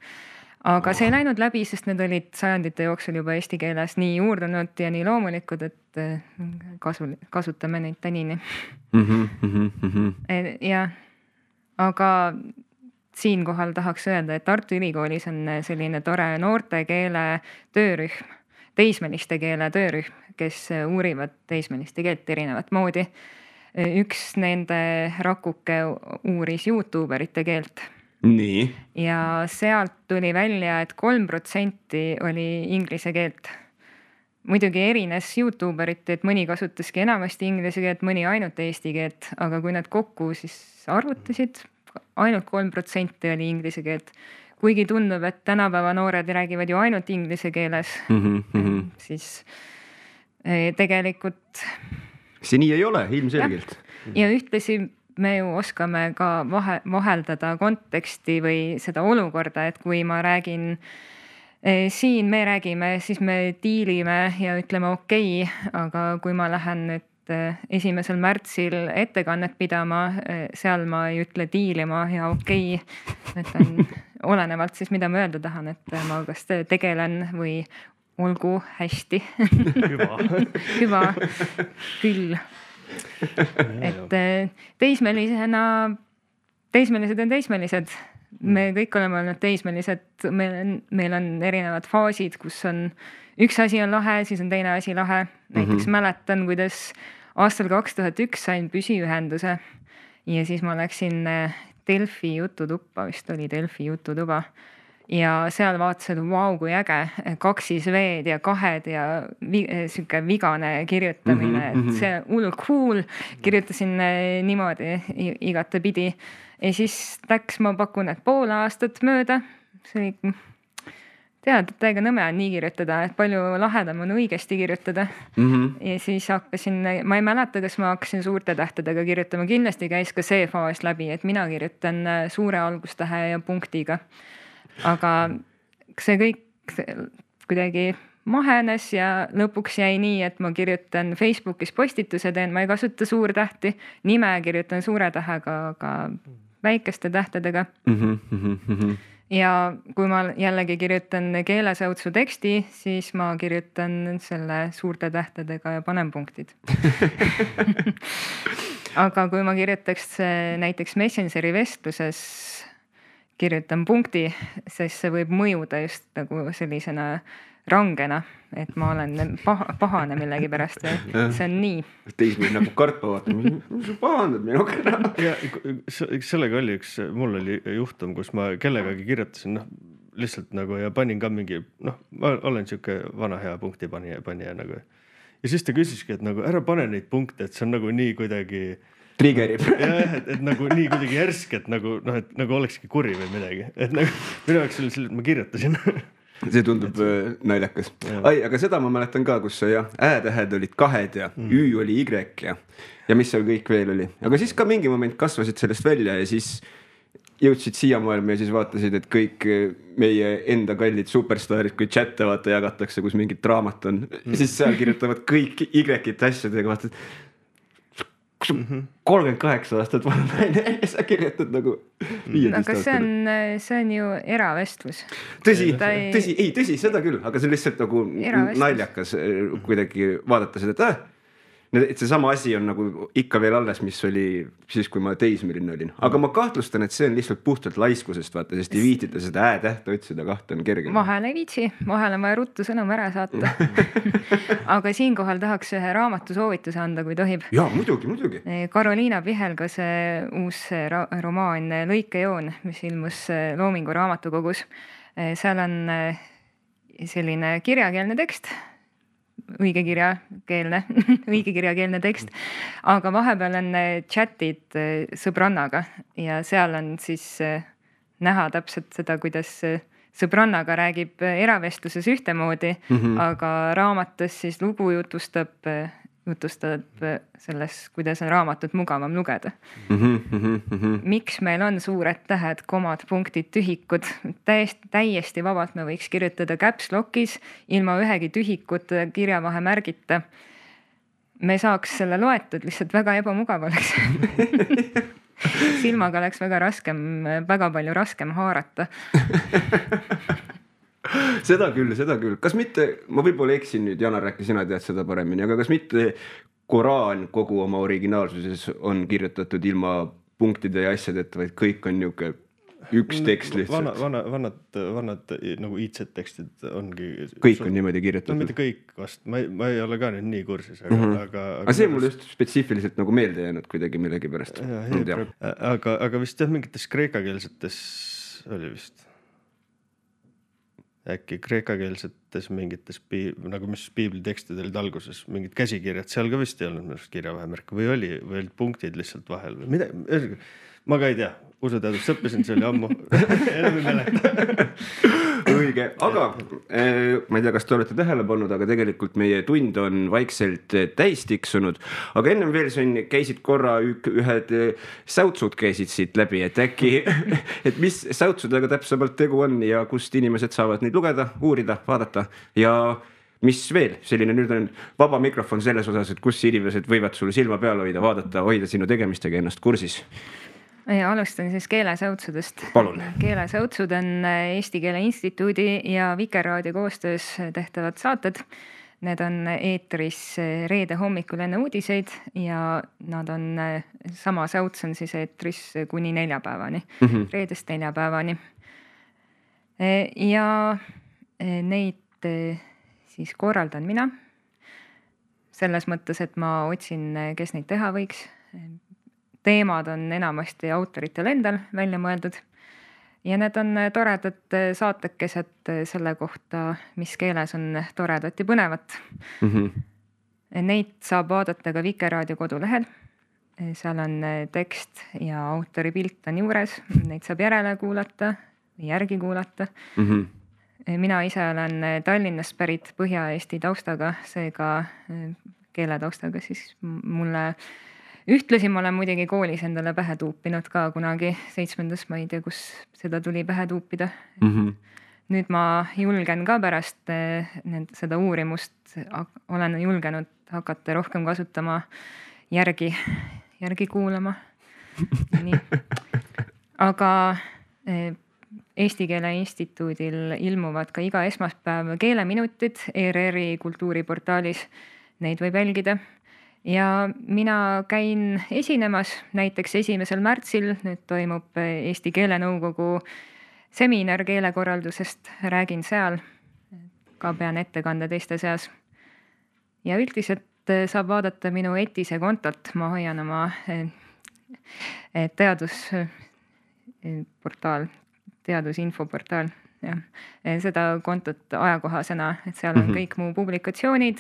Speaker 3: Aga see ei läinud läbi, sest need olid sajandite jooksul juba eesti keeles nii juurdunud ja nii loomulikud, et kasutame neid tänini. Ja, aga siinkohal tahaks öelda, et Tartu Ülikoolis on selline tore noortekeele töörühm, teismeliste keele töörühm, kes uurivad teismeliste keelt erinevat moodi. Üks nende rakuke uuris YouTuberite keelt.
Speaker 1: Nii.
Speaker 3: Ja sealt tuli välja, et 3% oli inglise keelt. Muidugi erines YouTuberite, et mõni kasutaski enamasti inglise keelt, mõni ainult eesti keelt, aga kui nad kokku siis arvutasid, ainult 3% oli inglise keelt. Kuigi tundub, et tänapäeva noored räägivad ju ainult inglise keeles, siis tegelikult...
Speaker 1: See nii ei ole, ilmselgelt.
Speaker 3: Ja ühtlasi me ju oskame ka vaheldada konteksti või seda olukorda, et kui ma räägin siin, me räägime, siis me diilime ja ütleme okei, aga kui ma lähen nüüd 1. märtsil ettekannet pidama, seal ma ei ütle diilima ja okei, ütlen olenevalt siis, mida ma öelda tahan, et ma kas tegelen või olgu hästi. Hüva, küll. Et teismelised on teismelised. Me kõik oleme olnud teismelised. Meil on erinevad faasid, kus on üks asi on lahe, siis on teine asi lahe. Näiteks mäletan, kuidas aastal 2001 sain püsiühenduse ja siis ma läksin Delfi jututuppa, vist oli Delfi jututuba. Ja seal vaatasid, vau, kui äge, 2 V-d ja 2 ja siuke vigane kirjutamine, et see hull cool, kirjutasin niimoodi igate pidi. Ja siis läks, ma pakun, et pool aastat mööda, see oli, tead, et täiega nõme on nii kirjutada, et palju lahedam on õigesti kirjutada. Ja siis hakkasin, ma ei mäleta, kas ma hakkasin suurte tähtedega kirjutama, kindlasti käis ka see faas läbi, et mina kirjutan suure algustähe ja punktiga. Aga see kõik kuidagi mahenes ja lõpuks jäi nii, et ma kirjutan Facebookis postituse teen, ma ei kasuta suurtähti, nime kirjutan suure tähega, aga väikeste tähtedega. Ja kui ma jällegi kirjutan keelesäutsu teksti, siis ma kirjutan selle suurte tähtedega ja panen punktid. Aga kui ma kirjutaks näiteks Messengeri vestluses, kirjutan punkti, sest see võib mõjuda just nagu sellisena rangena, et ma olen pahane millegi pärast ja see on nii.
Speaker 1: Teismil nagu kartma vaata, mis sa pahandad minuga.
Speaker 2: Ja sellega oli mul oli juhtum, kus ma kellegagi kirjutasin, lihtsalt nagu ja panin ka mingi, ma olen siuke vana hea punkti panija nagu. Ja siis ta küsiski, et nagu ära pane neid punkte, et see on nagu nii kuidagi
Speaker 1: triggerib.
Speaker 2: Jah, et nagu nii kuidagi järsk, et nagu olekski kuri või midagi. Et nagu minu jaoks oli selline, et ma kirjutasin.
Speaker 1: See tundub naljakas. Ai, aga seda ma mäletan ka, kus ä-tähed olid 2 ja ü oli y ja mis seal kõik veel oli. Aga siis ka mingi moment kasvasid sellest välja ja siis jõudsid siia maailma ja siis vaatasid, et kõik meie enda kallid superstaarid, kui chatte vaata jagatakse, kus mingit draamat on, siis seal kirjutavad kõik y-ite asjadega, vaatad, 38 aastat vana naine ja sa kirjutad nagu 15
Speaker 3: aga see on ju eravestlus.
Speaker 1: Tõsi, seda küll, aga see on lihtsalt nagu naljakas kuidagi vaadata seda, et see sama asi on nagu ikka veel alles, mis oli siis, kui ma teismeline olin. Aga ma kahtlustan, et see on lihtsalt puhtalt laiskusest, vaata, sest ei viitita seda ä-tähte otsida, 2 on kerge.
Speaker 3: Vahel ei viitsi, vahel on vaja ruttu sõnum ära saata. Aga siinkohal tahaks ühe raamatu soovituse anda, kui tohib.
Speaker 1: Jaa, muidugi.
Speaker 3: Karoliina Pihelgase uus romaan Lõikejoon, mis ilmus Loomingu raamatukogus. Seal on selline kirjakeelne tekst, õigekirjakeelne tekst, aga vahepeal on chatid sõbrannaga ja seal on siis näha täpselt seda, kuidas sõbrannaga räägib eravestluses ühtemoodi, aga raamatus siis lugu jutustab selles, kuidas on raamatut mugavam lugeda. Miks meil on suured tähed, komad, punktid, tühikud? Täiesti vabalt me võiks kirjutada caps lock'is ilma ühegi tühikut kirjavahe märgita. Me saaks selle loetud, lihtsalt väga ebamugav oleks. Silmaga oleks väga palju raskem haarata.
Speaker 1: Seda küll. Kas mitte, ma võib-olla eksin nüüd, Janar, rääki sina tead seda paremini, aga kas mitte Koraan kogu oma originaalsuses on kirjutatud ilma punktide ja asjadeta, vaid kõik on niuke üks tekst lihtsalt?
Speaker 2: Vanad nagu IC-tekstid ongi...
Speaker 1: Kõik on niimoodi kirjutatud?
Speaker 2: No mitte kõik vast, ma ei ole ka nüüd nii kursis,
Speaker 1: aga see mul just spetsiifiliselt nagu meelde jäänud kuidagi millegi pärast.
Speaker 2: Aga vist mingites kreekakeelsetes oli vist... Äkki kreekakeelsetes mingites, nagu mis piiblitekstid olid alguses, mingid käsikirjad, seal ka vist ei olnud kirjavahemärk või olid punktid lihtsalt vahel või mida, ma ka ei tea, usuteadust õppisin, see oli ammu, enam ei mäleta.
Speaker 1: Õige, aga ma ei tea, kas te olete tähele pannud, aga tegelikult meie tund on vaikselt täis tiksunud, aga ennem veel käisid korra ühed säutsud käisid siit läbi, et äkki, et mis säutsudega täpsemalt tegu on ja kust inimesed saavad neid lugeda, uurida, vaadata ja mis veel, selline nüüd on vaba mikrofon selles osas, et kus inimesed võivad sul silma peal hoida sinu tegemistega ennast kursis.
Speaker 3: Alustan siis keelesäutsudest.
Speaker 1: Palun.
Speaker 3: Keelesäutsud on Eesti Keele Instituudi ja Vikerraadio koostöös tehtavad saated. Need on eetris reede hommikul enne uudiseid ja nad on, sama säuts on siis eetris kuni neljapäevani, reedest neljapäevani. Ja neid siis korraldan mina. Selles mõttes, et ma otsin, kes neid teha võiks. Teemad on enamasti autoritel endal välja mõeldud ja need on toredad saatekesed selle kohta, mis keeles on toredat ja põnevat. Neid saab vaadata ka Vikerraadio kodulehel. Seal on tekst ja autori pilt on juures. Neid saab järele kuulata või järgi kuulata. Mina ise olen Tallinnast pärit Põhja-Eesti taustaga, seega keeletaustaga, siis mulle ühtlasi ma olen muidugi koolis endale pähe tuupinud ka kunagi 7. ma ei tea, kus seda tuli pähe tuupida. nüüd ma julgen ka pärast seda uurimust, olen julgenud hakata rohkem kasutama järgi kuulama. Nii. Aga Eesti Keele Instituudil ilmuvad ka iga esmaspäev keeleminutid ERR-i kultuuriportaalis, neid võib jälgida. Ja mina käin esinemas, näiteks 1. märtsil, nüüd toimub Eesti Keelenõukogu seminar keelekorraldusest, räägin seal, ka pean ettekande teiste seas. Ja üldiselt saab vaadata minu Etise kontot, ma hoian oma teadusinfoportaal. Ja. Seda kontot ajakohasena, et seal on kõik mu publikatsioonid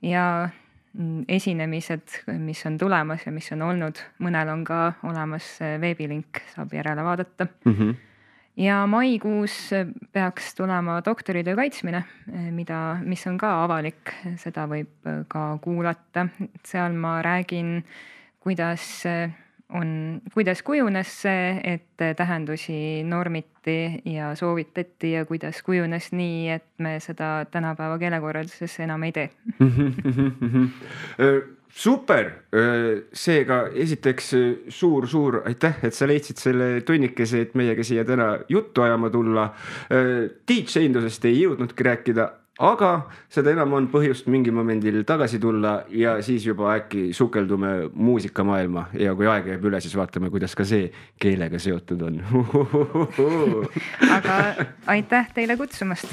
Speaker 3: ja esinemised, mis on tulemas ja mis on olnud. Mõnel on ka olemas veebilink, saab järele vaadata. Ja maikuus peaks tulema doktoritöö kaitsmine, mis on ka avalik, seda võib ka kuulata. Seal ma räägin, kuidas kujunes see, et tähendusi normiti ja soovitati ja kuidas kujunes nii, et me seda tänapäeva keelekorralduses enam ei tee.
Speaker 1: Super, seega esiteks suur aitäh, et sa leidsid selle tunnikese, et meiega siia täna juttu ajama tulla. DJ-indusest ei jõudnudki rääkida, aga seda enam on põhjust mingi momendil tagasi tulla ja siis juba äkki sukeldume muusikamaailma ja kui aeg jääb üle, siis vaatame, kuidas ka see keelega seotud on.
Speaker 3: Aga aitäh teile kutsumast!